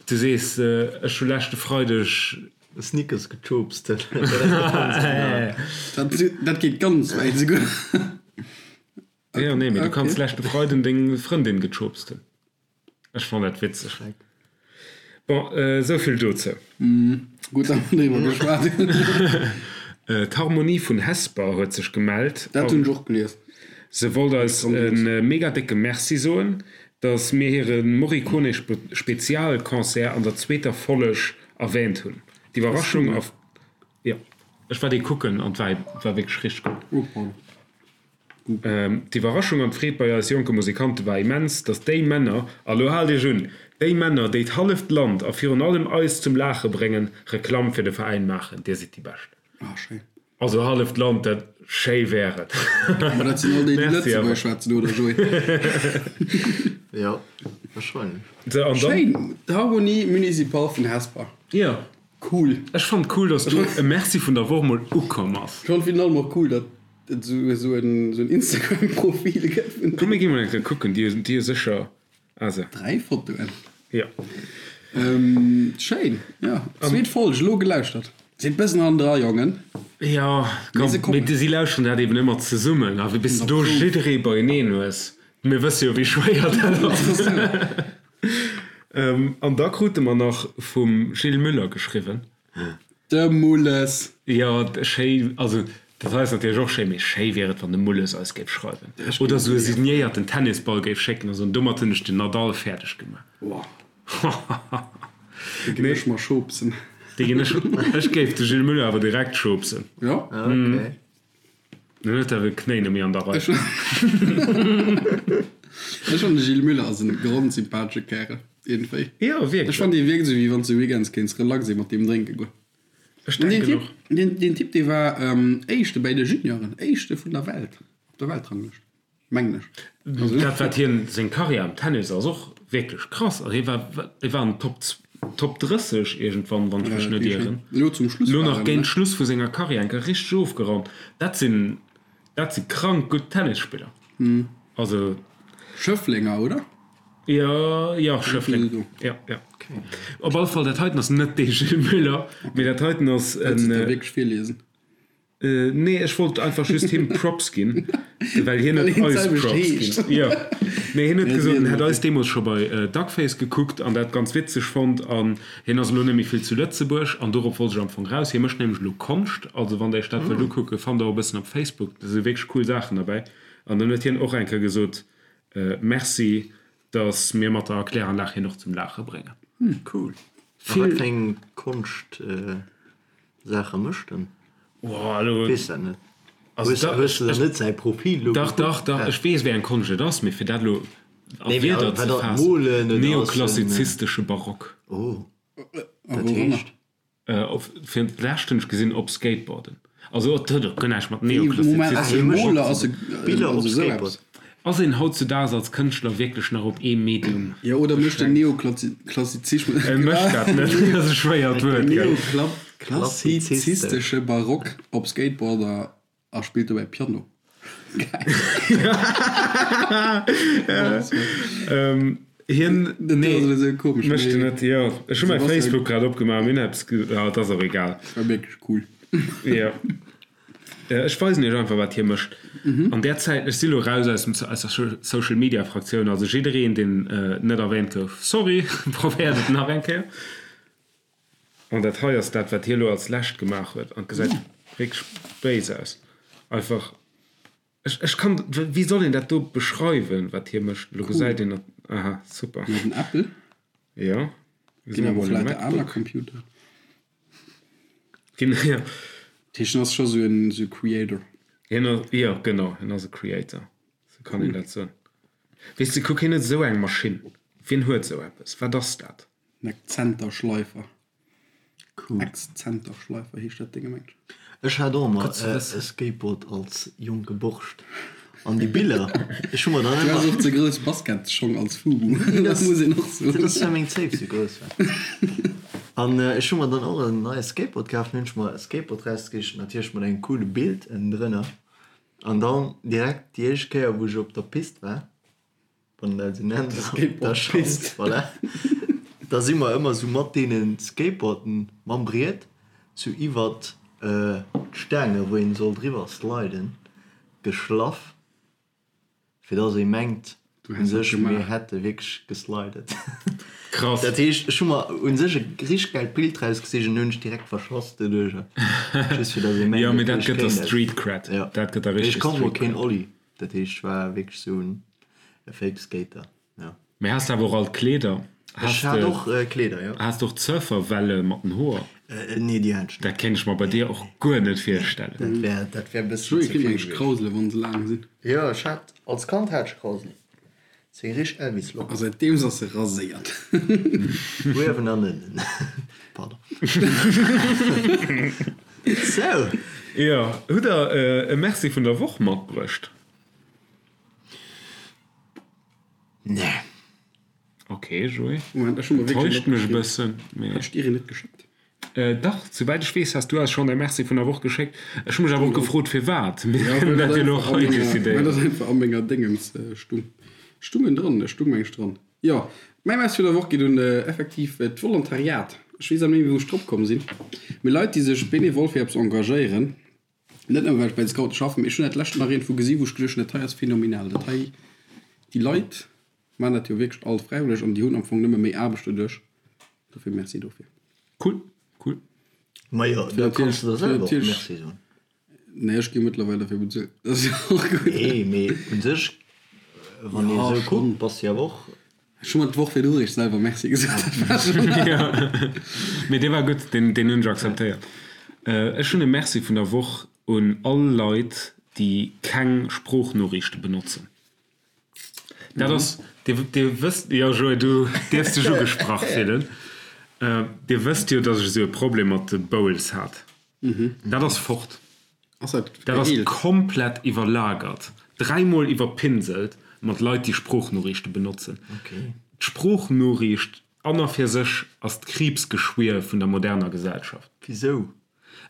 [SPEAKER 3] Du sees, ech hu leschte Freideg.
[SPEAKER 4] Snickers gechoopst.
[SPEAKER 2] Dat geet ganz wäit esouguer.
[SPEAKER 3] Jo, nee, mee du kanns leschte Freiden deng Frëndin gechoopst hunn. Ech fannen dat witzeg. Bon, esou vill dozou.
[SPEAKER 2] Gutt, datt mer driwwer geschwat hunn.
[SPEAKER 3] D'Harmonie vun Hesper huet sech gemellt.
[SPEAKER 2] Dat hunn ech och gelies.
[SPEAKER 3] Se wollt eis e mega décke Merci soen, dass mir hire Morricone Spezialconcert an der zweeter Folleg erwähnt hunn. D'Iwwerraschung a. Jo, ech war dee kucken an war war wierklech richteg gutt. D'Iwwerraschung an d'Freed bei eis jonke Musikante war immens, dass déi Männer, a lo haalt iech un, déi Männer, déi d'halleft Land a virun allem eis zum Laache bréngen, Reklamm fir de Veräin maachen. Dir sidd déi Bescht. Also halleft Land, dat schéi wär et.
[SPEAKER 2] Ma dat sinn all déi, déi Lëtzebuergesch schwätzen, oder Joé?
[SPEAKER 4] Jo, wahrscheinlech.
[SPEAKER 3] Sou, an dann.
[SPEAKER 2] Schéin, d'Harmonie Municipale vun Hesper.
[SPEAKER 3] Jo.
[SPEAKER 2] Cool.
[SPEAKER 3] Ech fannen et cool, dass do e Merci vun der Woch mol ukomm ass.
[SPEAKER 2] Ech fannen virun allem och cool, datt et esou en Instagram-Profil gëtt vun.
[SPEAKER 3] Komm mir gi mol eng Kéier kucken, déi hu sécher
[SPEAKER 2] Also. 3 Fotoen.
[SPEAKER 3] Jo.
[SPEAKER 2] Schéin, jo. Zweet Folg, elo gelauschtert. Sinn bëssen hannendra, Jongen.
[SPEAKER 3] Jo, komm, mee si lauschteren dat eben ëmmer zesummen a bis du do jidderee beieneen hues, mir wësse jo wéi schwéier dat ass. An da krute mer nach vum Gilles Müller geschriwwen.
[SPEAKER 2] De Mulles!
[SPEAKER 3] Jo, schéi, also dat hei ass natierlech och schéi, mee schéi wier et, wann de Mulles eis géif schreiwen. Oder esou e signéierten Tennisball géif schécken a soen, domat hunn ech den Nadal fäerdeg gemaach.
[SPEAKER 2] Dee ginn ech mer schopsen.
[SPEAKER 3] Dee ginn ech, ech géif de Gilles Muller awer direkt schopsen.
[SPEAKER 2] Jo?
[SPEAKER 4] Okay.
[SPEAKER 3] Dann huet awer Knéi net méi an der Rei.
[SPEAKER 2] Ech fannen de Gilles Muller ass en grondsympathesche Kärel iergendwéi.
[SPEAKER 3] Jo wierklech.
[SPEAKER 2] Ech fannen dee wierkt esou wéi wanns de weekends kéints relax ee mat deem drénke goen.
[SPEAKER 3] Ech denken och.
[SPEAKER 2] Deen Typ, deen Typ dee war éischte bäi de Junioren, éischte vun der Welt op der Weltranglëscht. Mengen ech.
[SPEAKER 3] Dat wat hien, seng Karriär am Tennis ass och wierklech krass. Also hie war, hie war an Top, Top 30 iergendwann, wann ech mech net ieren.
[SPEAKER 2] Elo zum Schluss
[SPEAKER 3] Elo nach géint Schluss vu senger Karriär eng Kéier richteg ofgeraumt. Dat sinn, dat si krank gutt Tennisspiller. Also.
[SPEAKER 2] Schëfflenger, oder?
[SPEAKER 3] Jo, jo, Schëffleng. Jo, jo. Op alle Fall, dat heiten ass net dee Gilles Muller, mee dat heiten ass en.
[SPEAKER 2] Wëlls de et da wierklech virliesen?
[SPEAKER 3] Nee, ech wollt einfach just him Props ginn, well hien huet eis Props ginn. Jo. Nee, hien huet gesot, en hätt eis deemools scho bei Duckface gekuckt an dat ganz witzeg fonnt an hien ass elo net méi vill zu Lëtzebuerg an dorop wollt ech am Fong raus. Hie mécht nämlech elo Konscht, also wann der iech dat wëllt ukucken, fannt der och e bëssen op Facebook, do si wierklech cool Saachen derbäi. An dann huet hien och eng Kéier gesot, Merci, dass mir mat der Erkläranlag hien och zum Laache bréngen.
[SPEAKER 4] Cool. A wat fir eng Konscht? Saache mécht en?
[SPEAKER 3] Oh, elo.
[SPEAKER 4] Weess dat net. Also Hues, da, hues du dann net säi Profil
[SPEAKER 3] elo Dach, dach, dach, ech weess, wéi eng Konscht et ass, mee fir dat elo a Nee, mee Wierder ze
[SPEAKER 4] wat ass faassen, Molen
[SPEAKER 3] oder ass en. Neoklassizistesche Barock.
[SPEAKER 4] Oh, dat heescht?
[SPEAKER 3] Op, fir d'lescht hunn ech gesinn, op Skateboarden. Also et huet och guer näischt mat
[SPEAKER 2] Moment, ass e
[SPEAKER 3] Neoklassizistesche
[SPEAKER 2] Moler, ass e,
[SPEAKER 4] Biller op
[SPEAKER 2] also esou eppes?
[SPEAKER 4] Skateboard.
[SPEAKER 3] Ass een hautzudaags als Kënschtler wierklech nach op ee Medium
[SPEAKER 2] Jo, oder mécht den
[SPEAKER 3] beschränkt?
[SPEAKER 2] Neoklassizismus,
[SPEAKER 3] E mécht dat net, dat ass e schwéiert Wuert, gell?
[SPEAKER 2] Neoklassizistesche Barock op Skateboarder a spillt dobäi Piano. Geil.
[SPEAKER 3] Hien,
[SPEAKER 2] Dat
[SPEAKER 3] nee,
[SPEAKER 2] ass esou komesch,
[SPEAKER 3] mécht en
[SPEAKER 2] mee
[SPEAKER 3] net, jo. Ech hu mäi
[SPEAKER 2] Sebastian,
[SPEAKER 3] Facebook grad opgemaach, mir hunn eppes ge, ah, et ass och egal.
[SPEAKER 2] war wierklech cool.
[SPEAKER 3] Jo. Ech weisen iech einfach wat hie mécht an där Zäit. Ech si lo raus aus dem aus der Social Media Fraktioun, also jiddereen deen net erwähnt gouf, sorry, probéiert et nach eng Kéier. An dat hei ass dat wat hie lo als lescht gemaach huet an et gesäit wierklech béis aus. Einfach ech ech kann wéi soll een dat do beschreiwen wat hie mécht? Lo gesäit een dat, aha super.
[SPEAKER 2] Huet en Apple?
[SPEAKER 3] Jo,
[SPEAKER 2] Ginn awer och lauter aner Computer.
[SPEAKER 3] Ginn, jo.
[SPEAKER 2] Dat heescht, en ass scho sou en sou Creator.
[SPEAKER 3] Hien ass, jo, genau, hien ass e Creator, sou kann een dat soen. Weess de, kuck, hien huet esou eng Maschinn. Wien huet esou eppes? Wat ass dat?
[SPEAKER 2] En Exzenterschleifer.
[SPEAKER 4] Cool.
[SPEAKER 2] Exzenterschleifer heescht dat Dénge, mengt ech.
[SPEAKER 4] Ech hat och emmer
[SPEAKER 3] Gutt ze
[SPEAKER 4] e
[SPEAKER 3] wëssen.
[SPEAKER 4] Skateboard als jonke Borscht. An déi Biller, ech hu mer dann
[SPEAKER 2] Du has
[SPEAKER 4] ëmmer.
[SPEAKER 2] och ze grouss Basketschong als Fubu,
[SPEAKER 4] Nee,
[SPEAKER 2] dat
[SPEAKER 4] dat
[SPEAKER 2] muss een och soen.
[SPEAKER 4] dat ass well meng Zéif sou grouss war. An ech hu mer dann och en neie Skateboard kaf, hunn ech mer e Skateboard rausgesicht, natierlech mat engem coole Bild ënnendrënner. An dann direkt déi éischt Kéier wou ech op der Pist war, wann een dat esou nennt, der Schanz, voilà, da si mer ëmmer esou mat deene Skateboarden mam Briet sou iwwert d'Staange wou een soll driwwer sliden geschlaff, fir dass ee mengt u sech mir hätte wierklech geslidet.
[SPEAKER 3] Krass.
[SPEAKER 4] Dat heescht ech hu mer u sech e richteg gäilt Bild rausgesicht an hunn ech direkt verschoss doduercher, just fir dass ee mengt
[SPEAKER 3] Jo, mee
[SPEAKER 4] et
[SPEAKER 3] dat
[SPEAKER 4] ech
[SPEAKER 3] gëtt der
[SPEAKER 4] kéint et.
[SPEAKER 3] Street Cred.
[SPEAKER 4] Jo,
[SPEAKER 3] Dat gëtt der
[SPEAKER 4] mee ech
[SPEAKER 3] richteg
[SPEAKER 4] konnt mol
[SPEAKER 3] Street
[SPEAKER 4] keen
[SPEAKER 3] Cred.
[SPEAKER 4] Ollie. Dat heescht, ech war wierklech esou en Fake Skater, jo.
[SPEAKER 3] Mee has de awer och all d'Kleeder?
[SPEAKER 4] Ech hat och Kleeder, jo.
[SPEAKER 3] Has de och d'Surferwelle mat den Hoer?
[SPEAKER 4] Nee, déi hat ech net.
[SPEAKER 3] Dat kéint ech mer bei dir och guer net virstellen.
[SPEAKER 4] Dat wär, dat wär e bëssen
[SPEAKER 2] Joé
[SPEAKER 4] ze
[SPEAKER 2] kritt
[SPEAKER 4] vill
[SPEAKER 2] mengt
[SPEAKER 4] gewiescht.
[SPEAKER 2] Krausele wann se laang sinn.
[SPEAKER 4] Jo, ech hat, als Kand hat ech Krauselen. Seng richteg Elvis-Locken.
[SPEAKER 2] A säitdeems ass se raséiert.
[SPEAKER 4] Uewen an ënnen. Pardon. Sou.
[SPEAKER 3] Jo, hutt der e Merci vun der Woch matbruecht?
[SPEAKER 4] Nee.
[SPEAKER 3] Ok, Joé.
[SPEAKER 2] Moment, ech hu mer wierklech
[SPEAKER 3] Enttäuscht mech e bëssen, mee.
[SPEAKER 2] Hat ech dir een net geschéckt?
[SPEAKER 3] Dach, souwäit ech weess, has du eis schonn e Merci vun der Woch geschéckt. Ech hu mech awer och gefrot, firwat. Mir kënnen dat jo elo och hei decidéieren.
[SPEAKER 2] Well dat einfach a menger Déngens stung. Stung en dran? Et stung, meng ech, dran. Jo, mäi Merci vun der Woch geet un effektiv d'Volontariat. Ech weess awer net méi, wéi wou ech drop komm sinn. Mee Leit, déi sech benevol fir eppes engagéieren, net nëmme well ech bei de Scoute schaffen, mee ech hunn dat lescht nach iergendwou gesi wou ech geduecht hunn, dat hei ass phänomenal, dat hei, déi Leit maachen dat jo wierklech all fräiwëlleg an déi hunn am Fong nëmme méi Aarbecht doduerch. Dofir Merci dofir.
[SPEAKER 3] Cool, cool.
[SPEAKER 4] Majo, da kanns de der selwer och Merci soen.
[SPEAKER 2] Nee, ech gi mëttlerweil derfir bezuelt. Dat ass jo och gutt.
[SPEAKER 4] Nee, mee un sech, wann ee sou kuckt, bass de jo awer och.
[SPEAKER 2] Ech hu mer d'Woch virdru réischt selwer Merci gesot. Dat war schonn.
[SPEAKER 3] Jo, mee dee war gutt, deen hunn ech akzeptéiert. Ech hunn e Merci vun der Woch un all Leit, déi keng Sproochnoriichte benotzen. Dat ass, Dir, Dir wësst, jo Joé, du dierfs dech ugesprach fillen. Dir wësst jo, datt ech esou e Problem mat de Bowls hat. Dat ass fort.
[SPEAKER 2] Ass dat
[SPEAKER 3] Dat ass
[SPEAKER 2] geheelt?
[SPEAKER 3] komplett iwwerlagert, dräimol iwwerpinselt mat Leit, déi Sproochnoriichte benotzen. D'Sproochnoriicht an a fir sech ass d'Kriibsgeschwier vun der moderner Gesellschaft.
[SPEAKER 4] Wisou?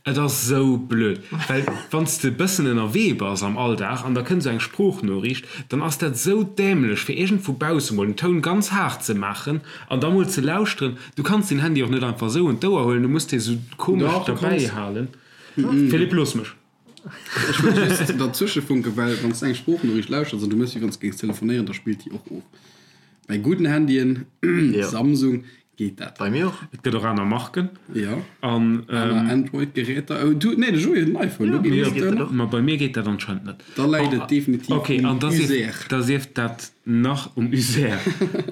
[SPEAKER 3] Et ass esou blöd, well wann s de e bëssen ënnerwee bass am Alldag an da kënnt esou eng Sproochnoriicht, dann ass dat esou dämlech fir iergend vu bausse mol den Toun ganz haart ze maachen an da mol ze lauschteren. Du kanns den Handy och net einfach esou un d'Ouer huelen, du muss dee sou komesch
[SPEAKER 2] Dach, du
[SPEAKER 3] derbäi
[SPEAKER 2] kanns.
[SPEAKER 3] halen. Philippe, looss mech.
[SPEAKER 2] Ech wëll just derzwësche funken, well wann s de eng Sproochnoriicht lauschters an du méchs wéi wann s de géings telefonéieren, da spillt déi och of. Bei gudden Handyen, Samsung, geet dat.
[SPEAKER 4] Bei mir och.
[SPEAKER 3] Et gëtt och aner Marken.
[SPEAKER 2] Jo,
[SPEAKER 3] An,
[SPEAKER 2] aner Android-Geräter. Oh, du, nee, de Joé huet en iPhone, do geet
[SPEAKER 3] jo,
[SPEAKER 2] et och.
[SPEAKER 3] Ma bei mir geet dat anscheinend net.
[SPEAKER 2] Da läit et definitiv
[SPEAKER 3] Ok,
[SPEAKER 2] um
[SPEAKER 3] an da sief,
[SPEAKER 2] User.
[SPEAKER 3] da sief dat nach um User.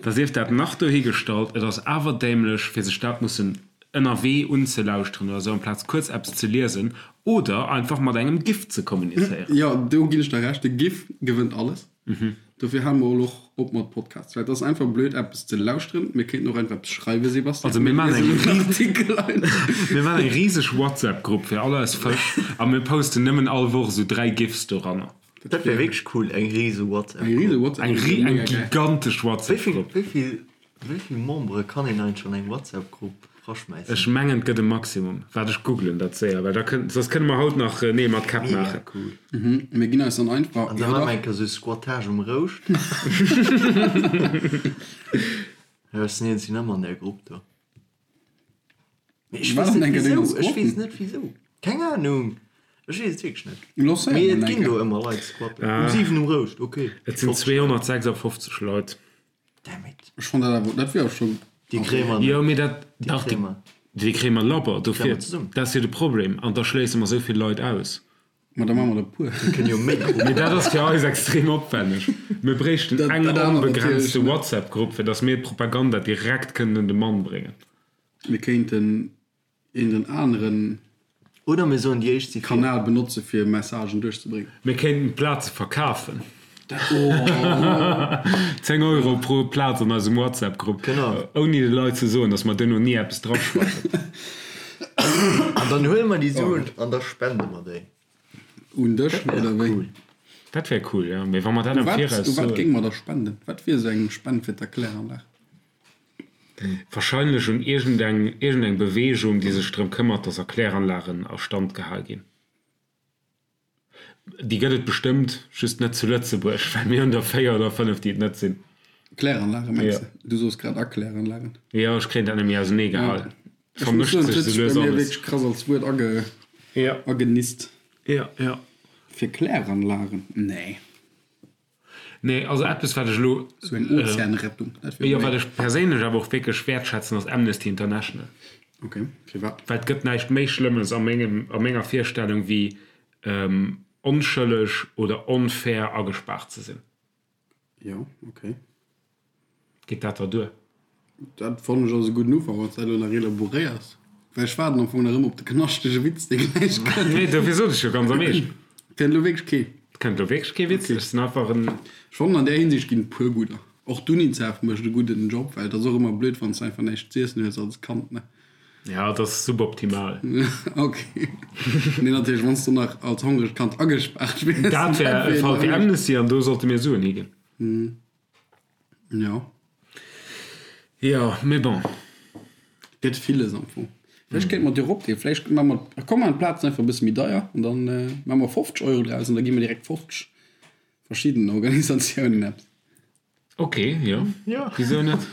[SPEAKER 3] Da sief dat nach dohigestallt, et ass awer dämlech, fir sech dat mussen ënnerwee unzelauschteren oder esou, amplaz kuerz eppes ze liesen oder einfach mat engem GIF ze kommunizéieren.
[SPEAKER 2] Jo, do ginn ech der Recht, de GIF gewënnt alles. Dofir hale mer elo och op mat Podcasts, well et ass einfach blöd eppes ze lauschteren. Mir kéinten och einfach eppes schreiwen, Sebastian.
[SPEAKER 3] Also mir maachen eng
[SPEAKER 2] Mir liesen en Artikel einfach.
[SPEAKER 3] Mir maachen eng riseg WhatsApp-Grupp fir all eis Fësch a mir posten nëmmen all Woch esou 3 GIFs doranner.
[SPEAKER 4] Dat wär wierklech cool, eng rise WhatsApp-Grupp.
[SPEAKER 2] Eng rise WhatsApp-Grupp
[SPEAKER 3] Eng gigantesch WhatsApp-Grupp.
[SPEAKER 4] Wéi vill Wéi vill Membere kann een eigentlech an eng WhatsApp-Grupp raschmäissen?
[SPEAKER 3] Ech mengen et gëtt e Maximum. Waart ech googlen dat séier, well da kënnt, soss kënne mer haut nach Neel mat Käpp
[SPEAKER 4] Mega
[SPEAKER 3] maachen.
[SPEAKER 4] cool.
[SPEAKER 2] Mir ginn eis dann einfach,
[SPEAKER 4] An da
[SPEAKER 2] jo
[SPEAKER 4] maache mer
[SPEAKER 2] dach.
[SPEAKER 4] eng Kéier sou Squattage um Rouscht. Jo, ech sinn iergendwéi nëmme an där Grupp do. Mee ech
[SPEAKER 2] Wat
[SPEAKER 4] weess
[SPEAKER 2] an
[SPEAKER 4] net
[SPEAKER 2] enker denger
[SPEAKER 4] wisou, ech weess
[SPEAKER 2] squatten?
[SPEAKER 4] net wisou. Keng Ahnung, ech weess et wierklech net.
[SPEAKER 2] Lancéier
[SPEAKER 4] Mee
[SPEAKER 2] mol
[SPEAKER 4] et
[SPEAKER 2] eng
[SPEAKER 4] ginn do
[SPEAKER 2] Kéier.
[SPEAKER 4] ëmmer Leit squatten. Um 7 um Rouscht, ok.
[SPEAKER 3] Et sinn 256 Leit.
[SPEAKER 4] Damn it.
[SPEAKER 2] Ech fonnt dat awer, dat wier awer schon.
[SPEAKER 4] Déi kréie mer net.
[SPEAKER 3] Jo, mee dat,
[SPEAKER 4] Déi
[SPEAKER 3] dach,
[SPEAKER 4] kréie mer.
[SPEAKER 3] déi kréie mer labber. Dofir,
[SPEAKER 4] mer zesummen.
[SPEAKER 3] dat ass jo de Problem. An da schléisse mer esou vill Leit aus.
[SPEAKER 2] Ma da maache mer der e puer.
[SPEAKER 4] Mir kënnen jo méi Gruppen.
[SPEAKER 3] Mee dat ass fir eis extrem opwänneg. Mir bréichten
[SPEAKER 2] Dat-
[SPEAKER 3] eng
[SPEAKER 2] dat anert
[SPEAKER 3] onbegrenzte
[SPEAKER 2] natierlech net.
[SPEAKER 3] WhatsApp-Grupp, fir datt mir d'Propaganda direkt kënnen un de Mann bréngen.
[SPEAKER 2] Mir kéinten een den aneren
[SPEAKER 4] Oder mir soen, déi éischt si vir.
[SPEAKER 2] Kanal benotze fir Messagen duerchzebréngen.
[SPEAKER 3] Mir kéinten d'Plaze verkafen. 10 Euro pro Plaz an eisem WhatsApp-Grupp.
[SPEAKER 4] Genau.
[SPEAKER 3] Ouni de Leit ze soen, datt mer duerno ni eppes draschreiwen.
[SPEAKER 4] An dann huele mer déi Suen an da spende mer déi.
[SPEAKER 2] Un dech, oder wéi?
[SPEAKER 4] Cool.
[SPEAKER 3] Dat wär cool, jo. Mee wa mer dat am
[SPEAKER 2] Wat,
[SPEAKER 3] Viraus
[SPEAKER 2] u wat
[SPEAKER 3] soen.
[SPEAKER 2] géinge mer da spenden? Wat wier esou eng Spend fir d'Erkläranlag?
[SPEAKER 3] Wahrscheinlech un iergendeng iergendeng Beweegung, déi sech drëm këmmert, dass Erkläranlagen a Stand gehal ginn. Déi gëtt et bestëmmt, just net zu Lëtzebuerg, well mir hunn der 4 oder 5, déi et net sinn.
[SPEAKER 2] Kläranlage mengs
[SPEAKER 3] Jo.
[SPEAKER 2] de? Du sos grad Erkläranlagen.
[SPEAKER 3] Jo, ech kréien dat net méi ausenee gehal.
[SPEAKER 2] Ech muss
[SPEAKER 3] Vermëscht
[SPEAKER 2] soen,
[SPEAKER 3] sech
[SPEAKER 2] et huet
[SPEAKER 3] esou
[SPEAKER 2] sech bei
[SPEAKER 3] lues
[SPEAKER 2] mir
[SPEAKER 3] alles.
[SPEAKER 2] wierklech krass als Wuert age
[SPEAKER 3] Jo.
[SPEAKER 2] agenist.
[SPEAKER 3] Jo, jo.
[SPEAKER 2] Fir Kläranlagen? Nee.
[SPEAKER 3] Nee, also eppes wat ech elo,
[SPEAKER 2] Sou eng Ozeanrettung, dat wier
[SPEAKER 3] jo, wat
[SPEAKER 2] méi.
[SPEAKER 3] ech perséinlech awer och wierklech wäertschätzen, ass Amnesty International.
[SPEAKER 2] Ok, firwat?
[SPEAKER 3] Well et gëtt näischt méi Schlëmmes a mengem, a menger Virstellung wéi onschëlleg oder onfair agespaart ze sinn.
[SPEAKER 2] Jo, ok.
[SPEAKER 3] Geet dat der duer?
[SPEAKER 2] Dat fannen ech ass e gudden Ufank, wann s dat elo nach elaboréiers. Well ech waarden am Fong nach ëmmer op de knaschtege Witz, dee gläich kënnt.
[SPEAKER 3] Nee, dofir sot ech jo ganz am Eescht.
[SPEAKER 2] Kënnt elo wierklech kee?
[SPEAKER 3] Et kënnt elo wierklech kee Witz. Ech sinn einfach en.
[SPEAKER 2] Ech fannen, an där Hinsicht ginn et puer gudder. Och d'Unicef mécht e gudden Job, well et ass och ëmmer blöd, wann s de einfach näischt z'iessen hues als Kand, ne?
[SPEAKER 3] Ja, et ass suboptimal.
[SPEAKER 2] Ok. Nee, natierlech, wann s du nach als hongregt Kand agespaart wiers.
[SPEAKER 3] Dat wär e Fall fir Amnesty an do sollte mir Suen higinn.
[SPEAKER 2] Jo.
[SPEAKER 3] Jo, mee bon.
[SPEAKER 2] Gëtt villes am Fong. Vläicht kéinte mer et jo eropginn. Vläicht maache mer, komm mer maachen d'Plazen einfach e bësse méi deier an dann maache mer 50 Euro draus an da gi mer direkt 50 verschiddenen Organisatiounen eppes.
[SPEAKER 3] Ok, jo.
[SPEAKER 4] Jo.
[SPEAKER 3] Wisou net?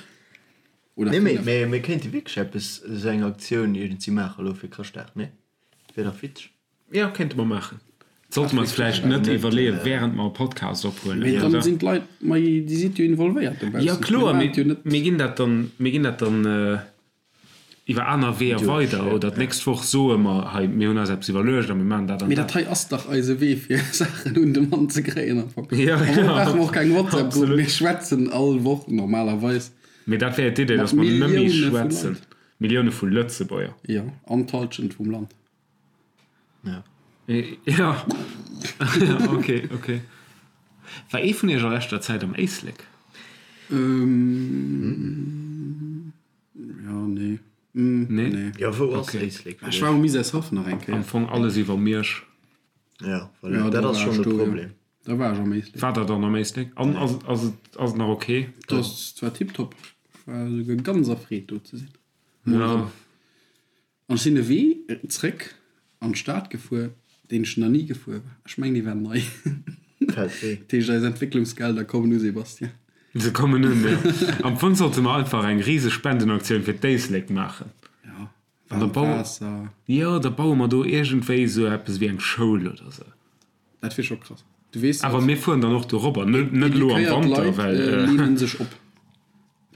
[SPEAKER 2] Oder
[SPEAKER 4] Nee, mee,
[SPEAKER 2] 5.
[SPEAKER 4] mee mir kéinte wierklech eppes, esou eng Aktioun iergendwéi maachen elo fir Chrëschtdag, nee? Wier dach witzeg.
[SPEAKER 3] Jo, kéinte mer maachen. Sollte mer eis vläicht net iwwerleeën, wärend mer e Podcast ophuelen,
[SPEAKER 2] Mee dann
[SPEAKER 3] oder?
[SPEAKER 2] sinn d'Leit méi, déi sidd jo involvéiert dobaussen.
[SPEAKER 3] Jo, kloer,
[SPEAKER 2] Mir
[SPEAKER 3] mee
[SPEAKER 2] maachen et jo net.
[SPEAKER 3] mir ginn dat dann, mir ginn dat dann iwwer aner Weeër weider. Oder d'nächst Woch soe mer, hei, mir hunn eis eppes iwwerluecht a mir maachen dat an
[SPEAKER 2] Mee dat
[SPEAKER 3] dat.
[SPEAKER 2] hei ass dach eise Wee, fir Saachen un de Mann ze kréien am Fong.
[SPEAKER 3] Jo,
[SPEAKER 2] Am Fong
[SPEAKER 3] jo,
[SPEAKER 2] brauche mer och keng WhatsApp-Grupp,
[SPEAKER 3] absolut.
[SPEAKER 2] mir schwätzen all Woch normalerweis
[SPEAKER 3] Mee dat wär jo d'Idee,
[SPEAKER 2] mat
[SPEAKER 3] dass mer nëmme
[SPEAKER 2] Millioune vu
[SPEAKER 3] schwätzen.
[SPEAKER 2] Leit.
[SPEAKER 3] Millioune vu Lëtzebuerger.
[SPEAKER 2] Jo, an d'Hallschent vum Land.
[SPEAKER 4] Ja.
[SPEAKER 3] Ja. Ok, ok. War ee vun iech a leschter Zäit am Éislek?
[SPEAKER 2] Ähm, ja, nee. Mm,
[SPEAKER 3] Nee?
[SPEAKER 2] nee.
[SPEAKER 4] Ja, wou ass Éislek fir
[SPEAKER 2] Ech war
[SPEAKER 4] dech?
[SPEAKER 2] um Misärshaff nach eng
[SPEAKER 3] Am
[SPEAKER 2] Kéier.
[SPEAKER 3] Fong alles iwwer Miersch.
[SPEAKER 4] Ja, voilà,
[SPEAKER 2] Ja,
[SPEAKER 4] dat
[SPEAKER 2] da
[SPEAKER 4] ass
[SPEAKER 2] war
[SPEAKER 4] schonn
[SPEAKER 2] ech
[SPEAKER 4] de
[SPEAKER 2] do, ja.
[SPEAKER 4] Problem.
[SPEAKER 2] Da war ech am Éislek.
[SPEAKER 3] War der dann am Éislek? An ass, ass et, ass et nach ok?
[SPEAKER 2] Dat ass zwar tiptop. Ech war esouguer ganz erfreet do ze sinn. Mol
[SPEAKER 3] Ja.
[SPEAKER 2] erëm. An ech sinn de Wee zréck. an d'Stad gefuer, deen ech nach ni gefuer war. Ech mengen, dee war nei.
[SPEAKER 4] Dat
[SPEAKER 2] heescht, eis Entwécklungsgelder kommen u, Sébastien.
[SPEAKER 3] Se kommen un, jo. Am Fong sollte mer einfach eng riseg Spendenaktioun fir d'Éislek maachen.
[SPEAKER 2] Jo, waarmt Waasser.
[SPEAKER 3] Jo, da baue mer do iergendwéi esou eppes wéi eng Schoul oder esou.
[SPEAKER 2] Dat wier scho krass. Du weess,
[SPEAKER 3] Awer mir fueren dann och dorobber, net elo am
[SPEAKER 2] Edukéiert
[SPEAKER 3] Wanter,
[SPEAKER 2] Leit
[SPEAKER 3] well.
[SPEAKER 2] leenen sech op.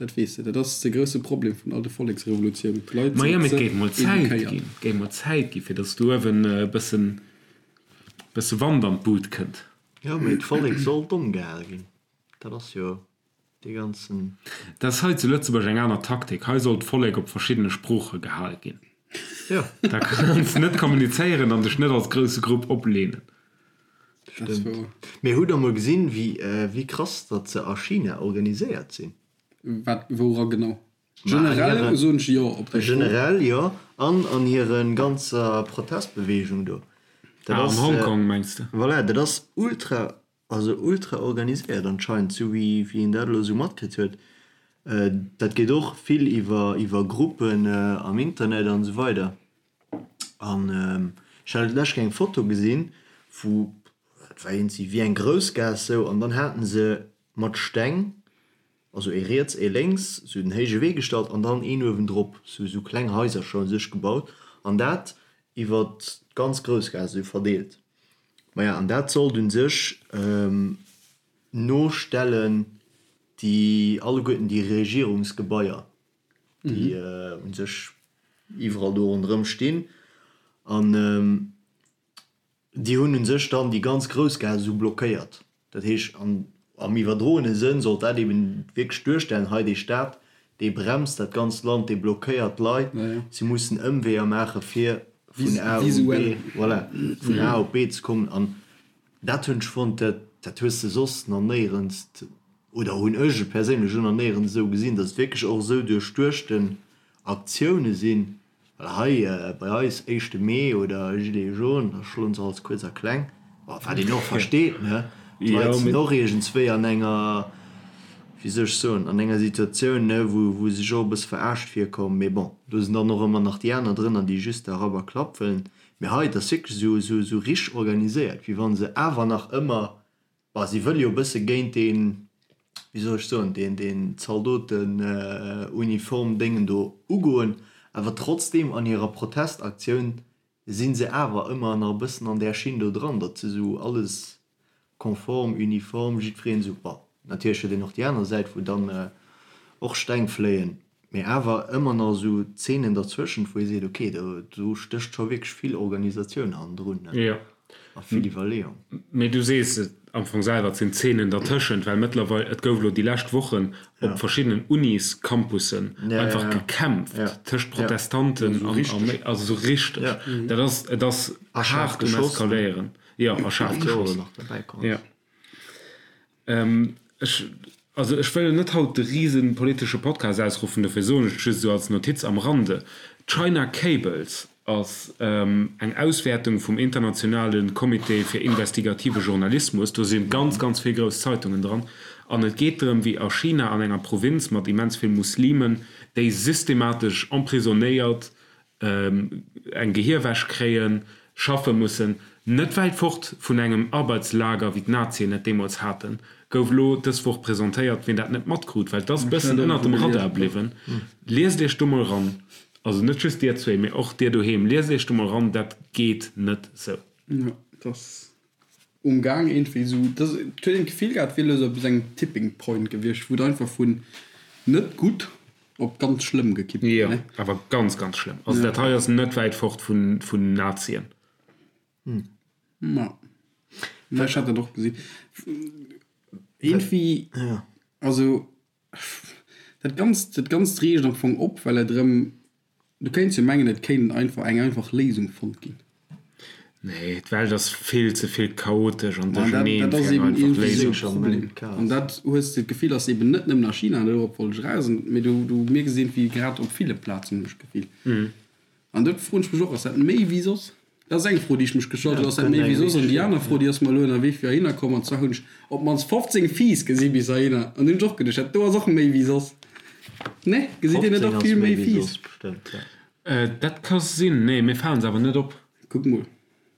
[SPEAKER 2] Dat weess de, dat ass de grousse Problem vun all de Volleksrevolutiounen, d'Leit
[SPEAKER 3] Majo,
[SPEAKER 2] sinn
[SPEAKER 3] mee et
[SPEAKER 2] ze
[SPEAKER 3] géif mol Zäit
[SPEAKER 2] edukéiert.
[SPEAKER 3] ginn, et géif mol Zäit ginn, fir datt do uewen e bëssen, bësse Wand an d'Bud kënnt.
[SPEAKER 4] Jo, mee d'Vollek soll domm gehal ginn, dat ass jo dee ganzen.
[SPEAKER 3] Dat ass hei zu Lëtzebuerg eng aner Taktik, hei soll d'Vollek op verschiddene Sprooche gehal ginn.
[SPEAKER 4] Jo.
[SPEAKER 3] Da kanns de net kommunizéieren an dech net als grousse Grupp opleenen.
[SPEAKER 2] Dat ass
[SPEAKER 4] Stëmmt.
[SPEAKER 2] wouer.
[SPEAKER 4] Mee hutt der mol gesinn, wéi, wéi krass datt se a China organiséiert sinn?
[SPEAKER 2] Wat, woura genau?
[SPEAKER 4] Ma an
[SPEAKER 2] Generell
[SPEAKER 4] hiren,
[SPEAKER 2] soen ech jo op déi Fro.
[SPEAKER 4] generell jo, an an hire ganzer Protestbeweegung do. Dat
[SPEAKER 3] Ah, an
[SPEAKER 4] ass,
[SPEAKER 3] Hongkong mengs de?
[SPEAKER 4] voilà, dat ass ultra, also ultra organiséiert anscheinend, sou wéi, wéi een dat elo sou matkritt huet. Dat geet och vill iwwer, iwwer Gruppen am Internet an esou weider. An ech hat d'lescht Kéier eng Foto gesinn, wou, dat war iergendwéi wéi eng Groussgaass sou, an dann haten se mat Steng, also ee riets, ee lénks, sou den héije Wee gestallt an dann een uewendrop, sou sou kleng Haisercher u sech gebaut an dat iwwer d'ganz Groussgaass esou verdeelt. Maja, an dat sollt u sech nostellen déi alleguerten déi Regierungsgebaier. déi u sech iwwerall do ronderëm stinn an déi hunn u sech dann déi ganz Groussgaass esou blockéiert. Dat heescht, an am iwwerdroene Sënn sollt dat eben wierklech duerstellen, hei dee Staat, dee bremst dat ganzt Land, dee blockéiert d'Leit, si mussen Ëmweeër maache fir vun A op B, voilà, vun A op B ze kommen. An dat hunn ech fonnt, dat dat hues de soss nach néierens oder hunn ech et perséinlech elo nach néierens esou gesinn, datt et wierklech och esou duerchduechten Aktioune sinn, well hei bei eis, éischte Mee oder Gilets jaunes, da schloen se alles kuerz a kleng, wat een och versteet, ne, d'Leit sinn och iergendswéi an enger, wéi soll ech soen, an enger Situatioun, ne, wou wou se sech och e bësse verarscht virkommen, mee bon, do sinn dann och ëmmer nach déi aner drënner, déi just da Rapp a Klapp wëllen, mee hei, et ass wierklech esou esou esou richteg organiséiert, wéi wa se awer nach ëmmer Bah, si wëlle jo e bësse géint deen, wéi soll ech soen, deen, deen Zaldotenuniform-Déngen do ugoen, awer trotzdeem an hirer Protestaktioun si se awer ëmmer nach e bëssen an där Schinn do dran, datt se esou alles konform, uniform, jiddwereen esou, bon, natierlech huet een och déi aner Säit, wou dann och Steng fléien, mee awer ëmmer nach esou Zeenen derzwëschent, wou ee seet, okay, do, do stécht scho wierklech vill Organisatioun hannendrun.
[SPEAKER 3] Jo.
[SPEAKER 4] A vill Iwwerleeung.
[SPEAKER 3] Mee du sees et am Fong selwer, et sinn Zeenen dertëschent, well mëttlerweil, et gouf elo déi lescht Wochen op verschiddenen Uniscampussen einfach gekämpft tëscht Protestanten an Arméi, also esou richteg. Dat ass, et ass haart um Eskaléieren. Jo, a schaarf geschoss. Jo. Ech, also ech wëll net haut de rise politesche Podcast ausruffen, dofir soen ech et just esou als Notiz am Rande, China Cables ass eng Auswäertung vum internationale Comité fir investigative Journalismus, do si ganz, ganz vill grouss Zeitungen dran, an et geet drëm, wéi a China an enger Provinz mat immens vill Muslimen, déi systematesch emprisonnéiert eng Gehierwäsch kréien, schaffe mussen, net wäit fort vun engem Arbeitslager, wéi d'Nazien et deemools haten, gouf elo dës Woch presentéiert. Wien dat net matkrut, well et ass e bëssen ënnert dem Radar bliwwen, liest iech do mol ran. Also net just dir zwee, mee och dir doheem, liest iech do mol ran, dat geet net sou.
[SPEAKER 2] Jo, et ass um Gaang iergendwéi esou, dass et huet een d'Gefill gehat, et wier elo esou op esou engem Tipping Point gewiescht, wou et einfach vun net gutt op ganz schlëmm gekippt
[SPEAKER 3] wier, Jo, ne? awer ganz, ganz schlëmm. Also dat hei ass net wäit fort vun, vun Nazien.
[SPEAKER 2] Ma, ma ech hat dat och gesinn. Iergendwéi, also dat Ganzt, dat Ganzt reegt am Fong op, well et erëm Du kéints jo mengen, et kéint einfach eng einfach Léisung fonnt ginn.
[SPEAKER 3] Nee, d'Welt ass vill ze vill chaotesch an duercherneen
[SPEAKER 2] Dat
[SPEAKER 3] fir
[SPEAKER 2] ass
[SPEAKER 3] eng
[SPEAKER 2] eben
[SPEAKER 3] einfach
[SPEAKER 2] iergendwéi esou
[SPEAKER 3] Léisung.
[SPEAKER 2] e Problem. An dat hues de d'Gefill, ass eben net nëmmen a China, dorop wollt ech eraus, mee du, du mierks et iergendwéi grad op ville Plazen, hunn ech d'Gefill. An do froen ech mech och, ass dat méi wéi soss? Dat ass eng Fro, déi ech mech gestallt hunn, ass dat méi wéi soss? An déi aner Fro, déi ass mer elo ënnerwee fir heihinner komm, an zwar hunn ech op d'mannst 15 Fiiss gesi bis heihinner, an hunn ech och geduecht, dat do ass och méi wéi soss. Nee, gesitt Dir net
[SPEAKER 4] 15
[SPEAKER 2] och
[SPEAKER 4] ass
[SPEAKER 2] vill
[SPEAKER 4] méi
[SPEAKER 2] méi
[SPEAKER 4] wéi
[SPEAKER 2] Fiiss?
[SPEAKER 4] soss bestëmmt, ja.
[SPEAKER 3] Dat ka sinn, nee, mir falen se awer net op.
[SPEAKER 2] Kuck mol.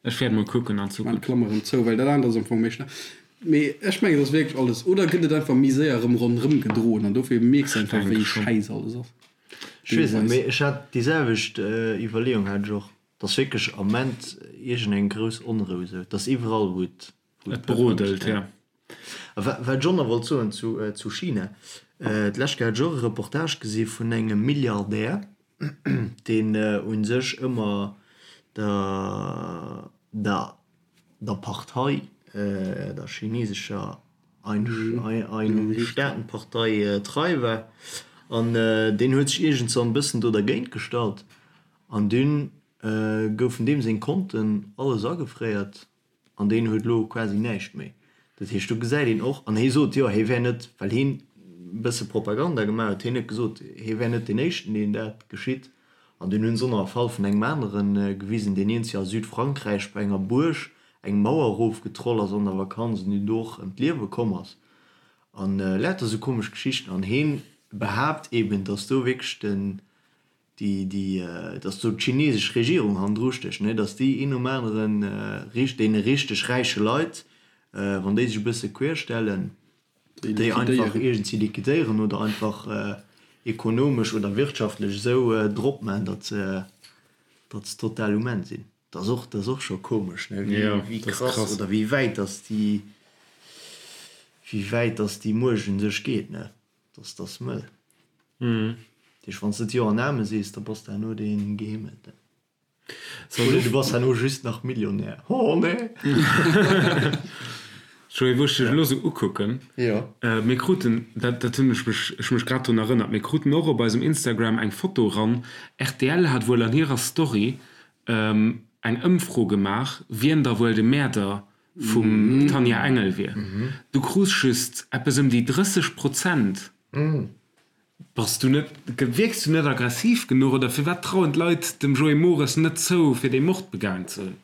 [SPEAKER 3] Ech wäert mol kucken an
[SPEAKER 2] Zukunft. Maan d'Klammer erëm zou, well dat anert ass am Fong méi schnell. Mee ech mengen, et ass wierklech alles. Oder gëtt et einfach méi séier erëm ronderëm gedroen an dofir mierks de einfach, wéi schäiss alles ass.
[SPEAKER 4] Ech weess net, mee ech hat déi selwecht Iwwerleeung hat ech och. Et ass wierklech am Ament iergendeng grouss Onrou esou. Et ass iwwerall, wou et
[SPEAKER 3] Et brodelt, ja.
[SPEAKER 4] A wat ech och nach wollt soen zu China, D'lescht Kéier hat ech och e Reportage gesi vun engem Milliardär, deen u sech ëmmer der der Partei, der chinesescher Ein-Staaten-Partei trei war. An deen huet sech iergendwann e bëssen do dergéint gestallt an dunn goufen deem seng Konten alles agefréiert. An deen huet elo quasi näischt méi. Dat heescht, do gesäit een och, an hie sot, jo, hie wär net, well hien e bësse Propaganda gemaach huet, hien huet gesot, hie wär net deen Éischten, deen dat geschitt. An dunn hunn se och nach e Fall vun engem anere gewisen, deen iergendwéi a Südfrankräich bei enger Buerg eng Mauer erofgetroll ass an der Vakanz an deen do och ëm d'Liewe komm ass. An lauter esou komesch Geschichten. An hien behaapt eeben, datt do wierklech den, déi, déi, dass do d'chinesesch Regierung hannendru stécht, ne, dass déi een nom aneren richt, deene richteg räiche Leit, wann déi sech e bësse quer stellen, déi einfach iergendwéi liquidéieren oder einfach ekonomesch oder wirtschaftlech esou drop maachen, datt se, datt se total um Enn sinn. Dat ass och, dat ass och scho komesch, ne, wéi, wéi krass oder wéi wäit dass déi, wéi wäit dass déi Muecht un sech geet, ne. Dass dass mëll. Dat heescht, wann s de d'Jo an Amen sees, da bass de herno dee Gehimmelten. Oder du bass herno just nach Millionär. Oh nee!
[SPEAKER 3] Joé, wou ech dech elo sou ukucken, mir kruten, dat dat hunn ech mech ech mech grad drun erënnert, mir kruten och op eisem Instagram eng Foto ran, rtl hat wuel an hirer Story eng Ëmfro gemaach, wien da wuel de Mäerder vum Tanja Engel wier. Du krus just eppes ëm déi 30 Prozent. Bass du net, wierks du net aggressiv genuch oder firwat trauen d'Leit dem Joé Mores net zou fir dee Mord begaang ze hunn?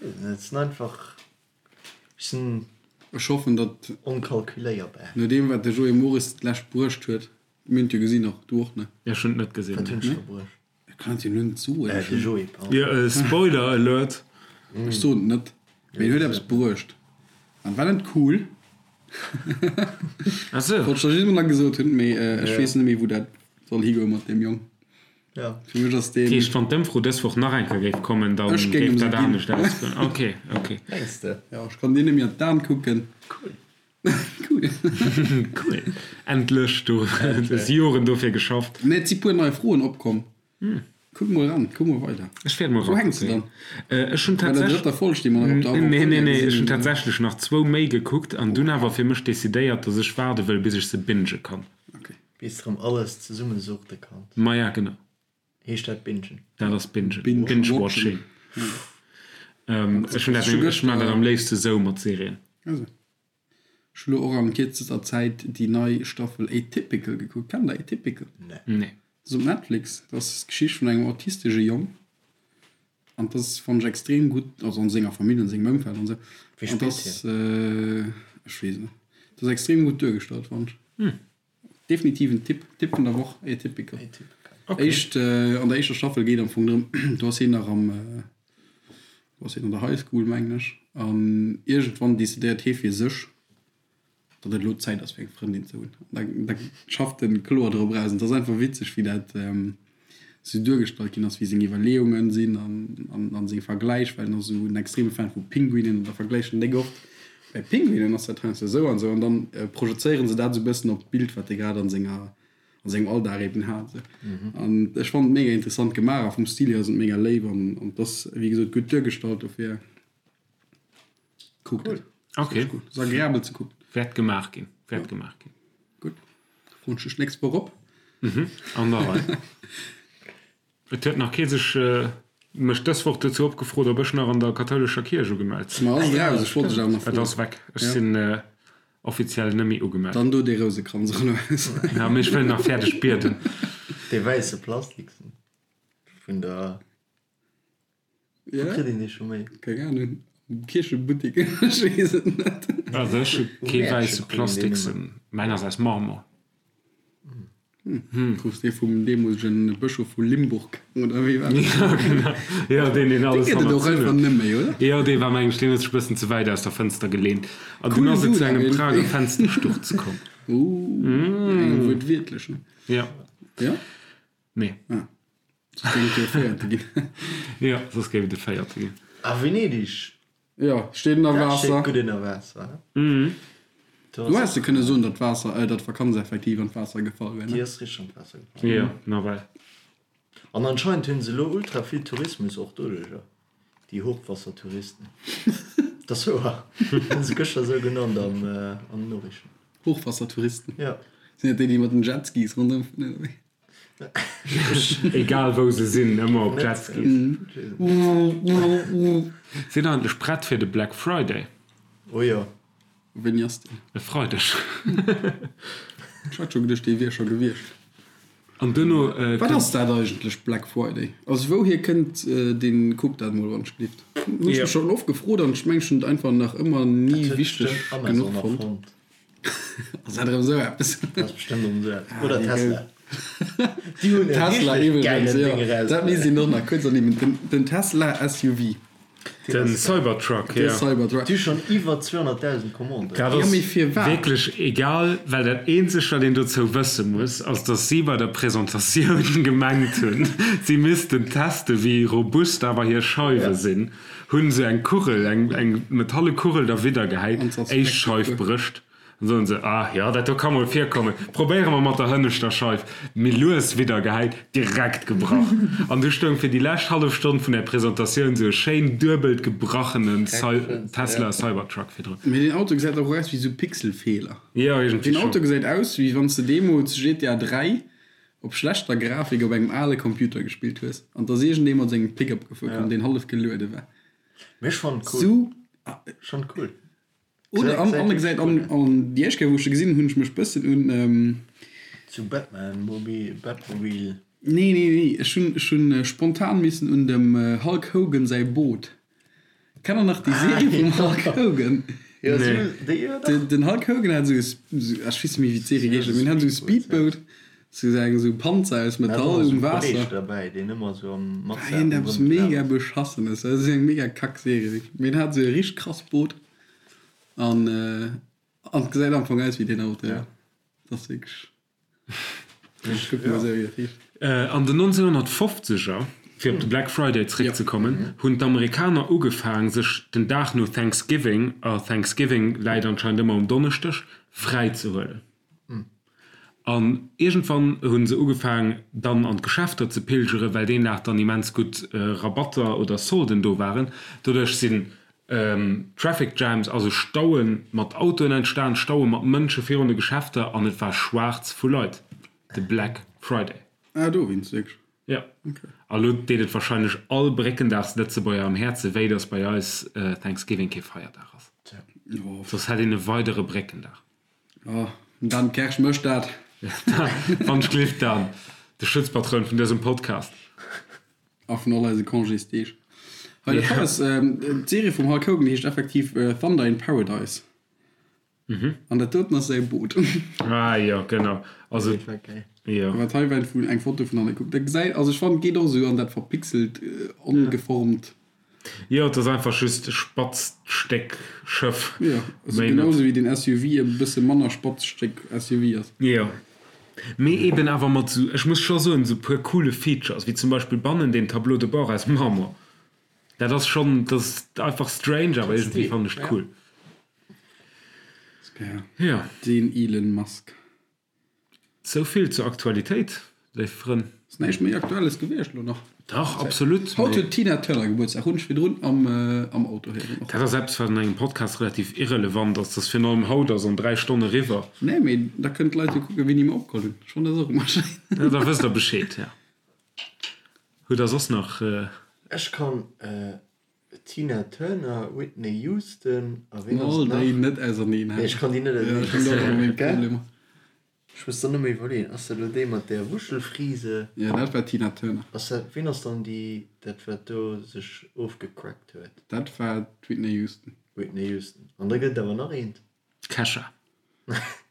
[SPEAKER 4] Ech weess net, et sinn einfach, ech sinn
[SPEAKER 2] Ech hoffen, datt
[SPEAKER 4] onkalkuléierbar.
[SPEAKER 2] No deem wat de Joé Mores d'lescht bruecht huet, mir hunn et jo gesinn, och du och, ne?
[SPEAKER 3] Jo, ech hunn et net gesinn.
[SPEAKER 4] Wat hunn ech da bruecht?
[SPEAKER 2] Ech kann et jo lo net soen.
[SPEAKER 4] Äh, de Joé, pardon.
[SPEAKER 3] Jo, Spoiler Alert!
[SPEAKER 2] Ech soen et net, mee en huet eppes bruecht an war net cool.
[SPEAKER 3] Ah sou.
[SPEAKER 2] Wollt ech der just mol nach gesot hunn, mee ech weess net méi wou dat soll higoe mat deem Jong.
[SPEAKER 4] Ja.
[SPEAKER 2] Fir mech ass deen.
[SPEAKER 3] Dat heescht, wann d'Ëmfro dës Woch nach eng Kéier géif kommen, da
[SPEAKER 2] Ech géing
[SPEAKER 3] géif
[SPEAKER 2] em se
[SPEAKER 3] dat
[SPEAKER 2] ginn.
[SPEAKER 3] anescht ausgoen. Ok, ok.
[SPEAKER 4] Mengs de?
[SPEAKER 2] Jo, ech kann dir net méi an d'An kucken.
[SPEAKER 4] Cool.
[SPEAKER 2] Cool.
[SPEAKER 3] Cool. Endlech, du hues Joren dofir geschafft.
[SPEAKER 2] Nee, et si puer nei Froen opkomm. Kuck mol eran, kuck mol weider.
[SPEAKER 3] Ech wäert mol
[SPEAKER 2] Wou hänks de
[SPEAKER 3] erakucken.
[SPEAKER 2] dann?
[SPEAKER 3] Ech hunn
[SPEAKER 2] Bei der
[SPEAKER 3] tatsächlech.
[SPEAKER 2] drëtter Folg, déi mer nach op der
[SPEAKER 3] Nee, nee,
[SPEAKER 2] Avant-première
[SPEAKER 3] nee, ech
[SPEAKER 2] gesinn
[SPEAKER 3] hunn
[SPEAKER 2] hunn.
[SPEAKER 3] tatsächlech nach zwou méi gekuckt an dunn awer fir mech decidéiert, dass ech waarde wëll, bis ech se binge kann.
[SPEAKER 2] Okay.
[SPEAKER 4] Bis de rëm alles zesummesuchte kanns.
[SPEAKER 3] Maja, genau.
[SPEAKER 4] Heescht dat Bingen?
[SPEAKER 3] Dat ass Bingen.
[SPEAKER 2] Binge-watching.
[SPEAKER 3] Ech hunn dat, ech maachen dat am léifste sou mat Serien.
[SPEAKER 2] Also. Ech hu lo och an kierzester Zäit déi nei Staffel Atypical gekuckt. Kennt der Atypical?
[SPEAKER 3] Nee.
[SPEAKER 2] Dat ass op Netflix. Dat ass d'Geschicht vun engem autistesche Jong. An dat ass, fannen ech, extrem gutt, also an senger Famill, an sengem Ëmfeld an esou.
[SPEAKER 4] Wie
[SPEAKER 2] An dat
[SPEAKER 4] spillt
[SPEAKER 2] ass, ech weess et net. Dat ass extrem gutt duergestallt, fannen ech. Definitiv en Tipp, Tipp vun der Woch, Atypical.
[SPEAKER 3] Okay.
[SPEAKER 2] Éischt, an der éischter Staffel geet am Fong drëm, do ass hien nach am, do ass hien an der High School, mengen ech, an iergendwann decidéiert hie fir sech, datt et elo Zäit ass fir eng Frëndin ze hunn. An da, da schafft en kloer drop eraus. An et ass einfach witzeg, wéi dat sou duergestallt ginn ass, wéi seng Iwwerleeungen sinn an, an seng Vergläich, well en ass esou en extreme Fan vu Pinguinen an da vergläicht en déck oft, bei Pinguinen ass dat heiansdo esou an esou an dann projezéieren se dat esou e bëssen op d'Bild, wat e grad an senger, an sengem Alldag eben hat esou. An ech fannen et mega interessant gemaach a vum Stil hier ass et mega léif an, an et ass wéi gesot gutt duergestallt, dofir kuckt et.
[SPEAKER 3] Ok.
[SPEAKER 2] Ass agreabel ze kucken.
[SPEAKER 3] Wäert gemaach ginn, wäert gemaach ginn.
[SPEAKER 2] Gutt. Froen ech dech d'nächst Woch op.
[SPEAKER 3] Mhm, an der Rei. Et huet nach kee sech mech dës Woch dozou opgefrot, ob ech nach an der kathoulescher Kierch ugemellt sinn.
[SPEAKER 2] Ma ass et raus? Ech wollt dech awer nach
[SPEAKER 3] Et
[SPEAKER 2] froen.
[SPEAKER 3] ass weg. Ech sinn offiziell net méi ugemellt.
[SPEAKER 2] Dann do dee Rousekranz och elo aus.
[SPEAKER 3] Ja, mee ech wëll nach fäerdeg bieden.
[SPEAKER 4] Dee wäisse Plastiksen vun der.
[SPEAKER 2] Ja.
[SPEAKER 4] Wou kritt een dee scho méi?
[SPEAKER 2] Keng Ahnung. Am Kierchebuttek, ech weess et net.
[SPEAKER 3] Also ech hu
[SPEAKER 4] Um
[SPEAKER 3] kee
[SPEAKER 4] Mäertche
[SPEAKER 3] wäisse
[SPEAKER 4] kritt een deen
[SPEAKER 3] Plastiksen.
[SPEAKER 4] nëmmen.
[SPEAKER 3] Mäin ass aus Marmor.
[SPEAKER 2] Krus dee vum deemolegen Bëschof vu Limburg, oder wéi war dat?
[SPEAKER 3] Ja, genau. Jo, deen, deen alles
[SPEAKER 2] Dee gëtt et och
[SPEAKER 3] hannerzunn
[SPEAKER 2] einfach
[SPEAKER 3] huet.
[SPEAKER 2] net méi, oder?
[SPEAKER 3] Jo, dee war, meng ech, deen huet sech e bëssen ze wäit aus der Fënster geleent. An
[SPEAKER 2] Cool
[SPEAKER 3] dunn ass et
[SPEAKER 2] Dude
[SPEAKER 3] zu engem
[SPEAKER 2] awer
[SPEAKER 3] Prager
[SPEAKER 2] iergendwéi.
[SPEAKER 3] Fenstersturz komm.
[SPEAKER 2] Ooh, engem wuertwiertlech, ne?
[SPEAKER 3] Ja.
[SPEAKER 2] Jo?
[SPEAKER 3] Nee.
[SPEAKER 2] Ah. Soss géif et jo e Véierte ginn.
[SPEAKER 3] Jo, soss géif et e Véierte ginn.
[SPEAKER 4] A Venedig
[SPEAKER 2] Jo, steet ënner
[SPEAKER 4] Dat steet
[SPEAKER 2] Waasser.
[SPEAKER 4] gutt ënner Waasser, he?
[SPEAKER 2] Du häss de kënne soen, datt d'Waasser, datt d'Vakanz effektiv an d'Waasser gefall wär, ne?
[SPEAKER 4] Déi ass richteg an d'Waasser gefall.
[SPEAKER 3] Jo, nawell.
[SPEAKER 4] An anscheinend hunn se elo ultra vill Tourismus och doduercher, déi Hochwassertouristen. Dat ass wouer, hunn se gëschter esou genannt am, an den Noriichten.
[SPEAKER 2] Hochwassertouristen?
[SPEAKER 4] Jo.
[SPEAKER 2] Sinn dat déi, déi mat den Jetskis ronderëm fueren, oder wéi?
[SPEAKER 3] Egal wou se sinn, ëmmer op Jetskis. Sinn eigentlech prett fir de Black Friday?
[SPEAKER 4] Oh jo.
[SPEAKER 2] Wéini ass deen?
[SPEAKER 3] E Freideg.
[SPEAKER 2] Ech hat scho geduecht, dee wier scho gewiescht.
[SPEAKER 3] An duerno
[SPEAKER 2] Wat ass dat eigentlech, Black Friday? Also wouhier kënnt deen? Kuck dat mol wann ech gelift. Hunn ech mech schonn oft gefrot an ech mengen ech hunn et einfach nach ëmmer ni wichteg genuch fonnt. Ass dat erëm esou eppes?
[SPEAKER 4] Dat ass bestëmmt erëm esou eppes. Oder Tesla. Déi hunn e
[SPEAKER 2] Tesla
[SPEAKER 4] richteg
[SPEAKER 2] iwwregens,
[SPEAKER 4] gäilen
[SPEAKER 2] jo.
[SPEAKER 4] Ding erausbruecht.
[SPEAKER 2] Dat misst een och nach kuerz ernimmen. Den, den Tesla SUV.
[SPEAKER 3] Den Cybertruck,
[SPEAKER 2] De
[SPEAKER 3] jo.
[SPEAKER 2] Cybertruck.
[SPEAKER 4] Déi hu schonn iwwer 200.000 Commanden.
[SPEAKER 3] Dat
[SPEAKER 2] Jo,
[SPEAKER 3] ass
[SPEAKER 2] mee firwat?
[SPEAKER 3] wierklech egal, well dat eenzegt, wat een dozou wësse muss, ass, dass si bei der Presentatioun gemengt hunn, si missten teste wéi robust awer hir Scheiwe sinn. Hunn se eng Kugel, eng eng metalle Kugel derwidder gehäit, éischt Scheif brécht, dann soen se, ah jo, dat do ka mol virkommen, probéiere mer mat der hënneschter Scheif, méi lues widder gehäit, direkt gebrach. An du stoung fir déi lescht hallef Stonn vun der Presentatioun sou e schéin duebelt gebrachenen Tesla Cybertruck virdrun.
[SPEAKER 2] Mee deen Auto gesäit och aus wéi sou Pixelfeeler.
[SPEAKER 3] Jo, iergendwéi
[SPEAKER 2] Deen
[SPEAKER 3] schonn.
[SPEAKER 2] Auto gesäit aus wéi wann s de deemools GTA 3 op schlechter Grafik op engem ale Computer gespillt hues an 't ass iergendee mat sengem Pickup gefuer komm, deen hallef geluede war.
[SPEAKER 4] Mee ech fannen cool.
[SPEAKER 2] Sou.
[SPEAKER 4] Ech fannen cool.
[SPEAKER 2] Oder an an e gesäit an an déi éischt Kéier wou ech e gesinn hunn, hunn ech mech bëssen un.
[SPEAKER 4] Zu Batman Mobil, Batmobil.
[SPEAKER 2] Nee nee nee, ech hunn ech hunn spontan missen un dem Hulk Hogan säi Boot Kennt der nach déi Serie vum Hulk Hogan? Den Hulk Hogan hat esou e, ech weess net méi wéi d'Serie geheescht huet, mee en hat esou e Speedboat, sou eng esou Panzer aus Metall um Waasser. War iergendeppes mega beschassenes, dat ass eng mega kack Serie wierklech, mee en hat esou e richteg krass Boot an an et gesäit am Fong aus wéi deen Auto, jo. Dat ass wierklech.
[SPEAKER 3] An den 1950er, fir op de Black Friday zeréckzekommen, hunn d'Amerikaner ugefaang, sech den Dag no Thanksgiving, a Thanksgiving läit anscheinend ëmmer um Donneschdeg, fräi ze huelen. An iergendwann hu se ugefaang, dann an d'Geschäfter ze pilgeren, well deen Dag dann immens gutt Rabatter oder Solden do waren. Doduerch sinn Traffic Jams, also Staue mat Autoen entstan, Staue mat Mënsche virun de Geschäfter an et war schwaarz vu Leit, de Black Friday.
[SPEAKER 2] Ah dowéinst wierklech?
[SPEAKER 3] Jo. A lo deet et warscheinlech all Bréckendagslëtzebuerger am Häerze wéi, datt bei eis Thanksgiving kee Feierdag ass. Soss hätt een e weidere Bréckendag.
[SPEAKER 2] Oh, den Dan Kersch mécht dat.
[SPEAKER 3] Wann ech gleeft, Dan, de Schutzpatroun vun dësem Podcast.
[SPEAKER 2] A vun all eise Congésdeeg. Hei, dat hei ass d'Serie vum Hulk Hogan, déi heescht effektiv Thunder in Paradise. An dat doten ass säi Boot.
[SPEAKER 3] Ah jo, genau. Also, jo.
[SPEAKER 2] Wat hei war vun eng Foto vun an. Kuck, dat gesäit, also ech fannen, et geet och esou an dat verpixelt, ongeformt.
[SPEAKER 3] Jo, et ass einfach just e spatzt Stéck Schëff.
[SPEAKER 2] Jo, also genau sou wéi den SUV e bësse manner spatzt Stéck SUV ass.
[SPEAKER 3] Jo, mee eben awer mat sou, ech muss scho soen, sou puer coole Features, wéi zum Beispill bannen deen Tableau de bord aus Marmor. Dat ass schonn, dat ass einfach strange, awer iergendwéi fannen ech et cool. Jo.
[SPEAKER 2] Den Elon Musk.
[SPEAKER 3] Sou vill zur Aktualitéit, léif Frënn.
[SPEAKER 2] Ass näischt méi Aktuelles gewiescht elo nach?
[SPEAKER 3] Dach, absolut.
[SPEAKER 2] Haut huet d'Tina Turner Gebuertsdag, hunn ech virdrun am Auto héieren och.
[SPEAKER 3] Dat ass eppes, wat an engem Podcast relativ irrelevant ass, dass virun allem haut ass an 3 Stonn eriwwer.
[SPEAKER 2] Nee, mee da kënnen d'Leit jo kucken, wéini mer opgeholl hunn. Ech fannen dat och ëmmer schéin.
[SPEAKER 3] Ja, da wësst der Bescheed, ja. Hutt der soss nach.
[SPEAKER 4] Ech kann Tina Turner, Whitney Houston a ween ass
[SPEAKER 2] All
[SPEAKER 4] et nach?
[SPEAKER 2] déi net auserneen
[SPEAKER 4] Nee, ech kann déi net
[SPEAKER 2] Ja, ech hunn do och ëmmer meng
[SPEAKER 4] gell?
[SPEAKER 2] Problemer.
[SPEAKER 4] Ech muss dann nëmme iwwerleeën, ass dat elo déi mat där Wuschelfrise?
[SPEAKER 2] Ja, dat war Tina Turner.
[SPEAKER 4] Ass dat, ween ass dann déi, dat wat do sech ofgecrackt huet?
[SPEAKER 2] Dat war d'Whitney Houston.
[SPEAKER 4] Whitney Houston. An da gëtt et awer nach eent.
[SPEAKER 3] Kesha.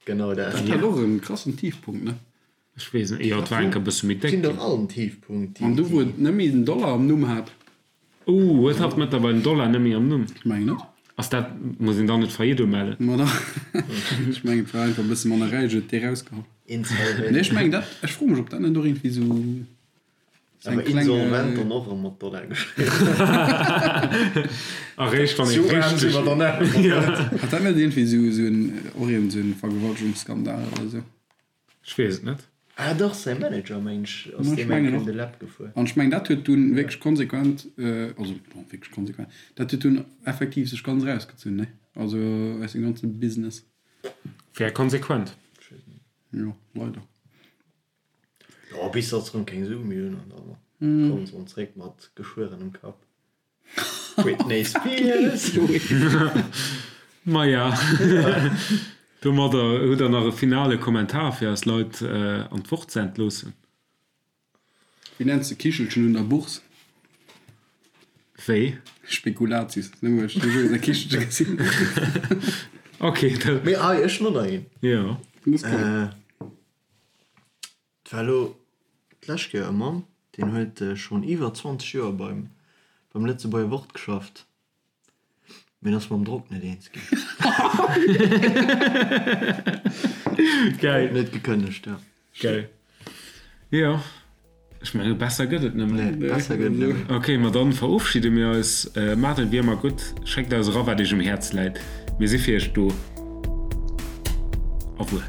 [SPEAKER 4] Genau dat.
[SPEAKER 2] Dat hat och en krassen Tiefpunkt, ne?
[SPEAKER 3] Ech weess net, jo et war enker e bësse méi déck
[SPEAKER 4] Sinn dach all en Tiefpunkt,
[SPEAKER 2] déi. An du wou et net méi den Dollar am Numm hat.
[SPEAKER 3] Ooh, huet hatt mëttlerweil den Dollar net méi am Numm?
[SPEAKER 2] Ech mengen net.
[SPEAKER 3] Ass dat, muss een dann net Faillite umellen?
[SPEAKER 2] Ma dach, ech mengen et war einfach e bësse manner räich, huet dee rausgeholl.
[SPEAKER 4] Insolvent.
[SPEAKER 2] Nee ech mengen dat, ech froe mech ob dat net och iergendwéi sou seng
[SPEAKER 4] Awer
[SPEAKER 2] kleng.
[SPEAKER 4] insolvent dann och erëm mat Dollar geschriwwen.
[SPEAKER 3] Eréischt wann ee
[SPEAKER 4] Sou aarm si
[SPEAKER 3] richteg.
[SPEAKER 4] mer dann awer net.
[SPEAKER 2] Hat dat net iergendwéi sou sou en, och iergend sou en Vergewaltegungsskandal oder sou?
[SPEAKER 3] Ech weess et net.
[SPEAKER 4] Ah dach, säi Manager meng ech ass
[SPEAKER 2] Ech
[SPEAKER 4] deem eng
[SPEAKER 2] mengen
[SPEAKER 4] Kéier
[SPEAKER 2] och.
[SPEAKER 4] de Läpp gefuer.
[SPEAKER 2] An ech mengen dat huet dunn wierklech konsequent, also bon wierklech konsequent, dat huet dunn effektiv sech ganz erausgezunn, ne? Also aus dem ganze Business.
[SPEAKER 3] Wär konsequent.
[SPEAKER 2] Jo, leider.
[SPEAKER 4] Jo, bis datt se erëm keng Sue méi hunn an da kommen se erëm zréck mat geschwuerenem Kapp. Britney Spears!
[SPEAKER 3] Maja, domadder hutt der nach e finale Kommentar fir eis Leit an d'Woch ze entloossen?
[SPEAKER 2] Wéi nenns de Kichelchen un der Bourse?
[SPEAKER 3] Wéi?
[SPEAKER 2] Spekulatius. Nëmme well ech de Jour e Kichelche gesinn hunn.
[SPEAKER 3] Ok, dat.
[SPEAKER 4] Mee hei, ech hunn och nach een.
[SPEAKER 3] Jo.
[SPEAKER 4] Et war elo d'lescht Kéier e Mann, deen huet schonn iwwer 20 Joer beim beim Lëtzebuerger Wort geschafft, mee en ass mam Drock net eens ginn.
[SPEAKER 3] Geil.
[SPEAKER 4] En huet gekënnegt, jo.
[SPEAKER 3] Geil. Jo, ech menge besser gëtt et net méi.
[SPEAKER 4] Nee, besser gëtt et net méi.
[SPEAKER 3] Ok, ma dann verofschidde mir eis. Maacht et wéi ëmmer gutt, schéckt eis era wat iech um Häerz läit. Mir si fir iech do. Au revoir.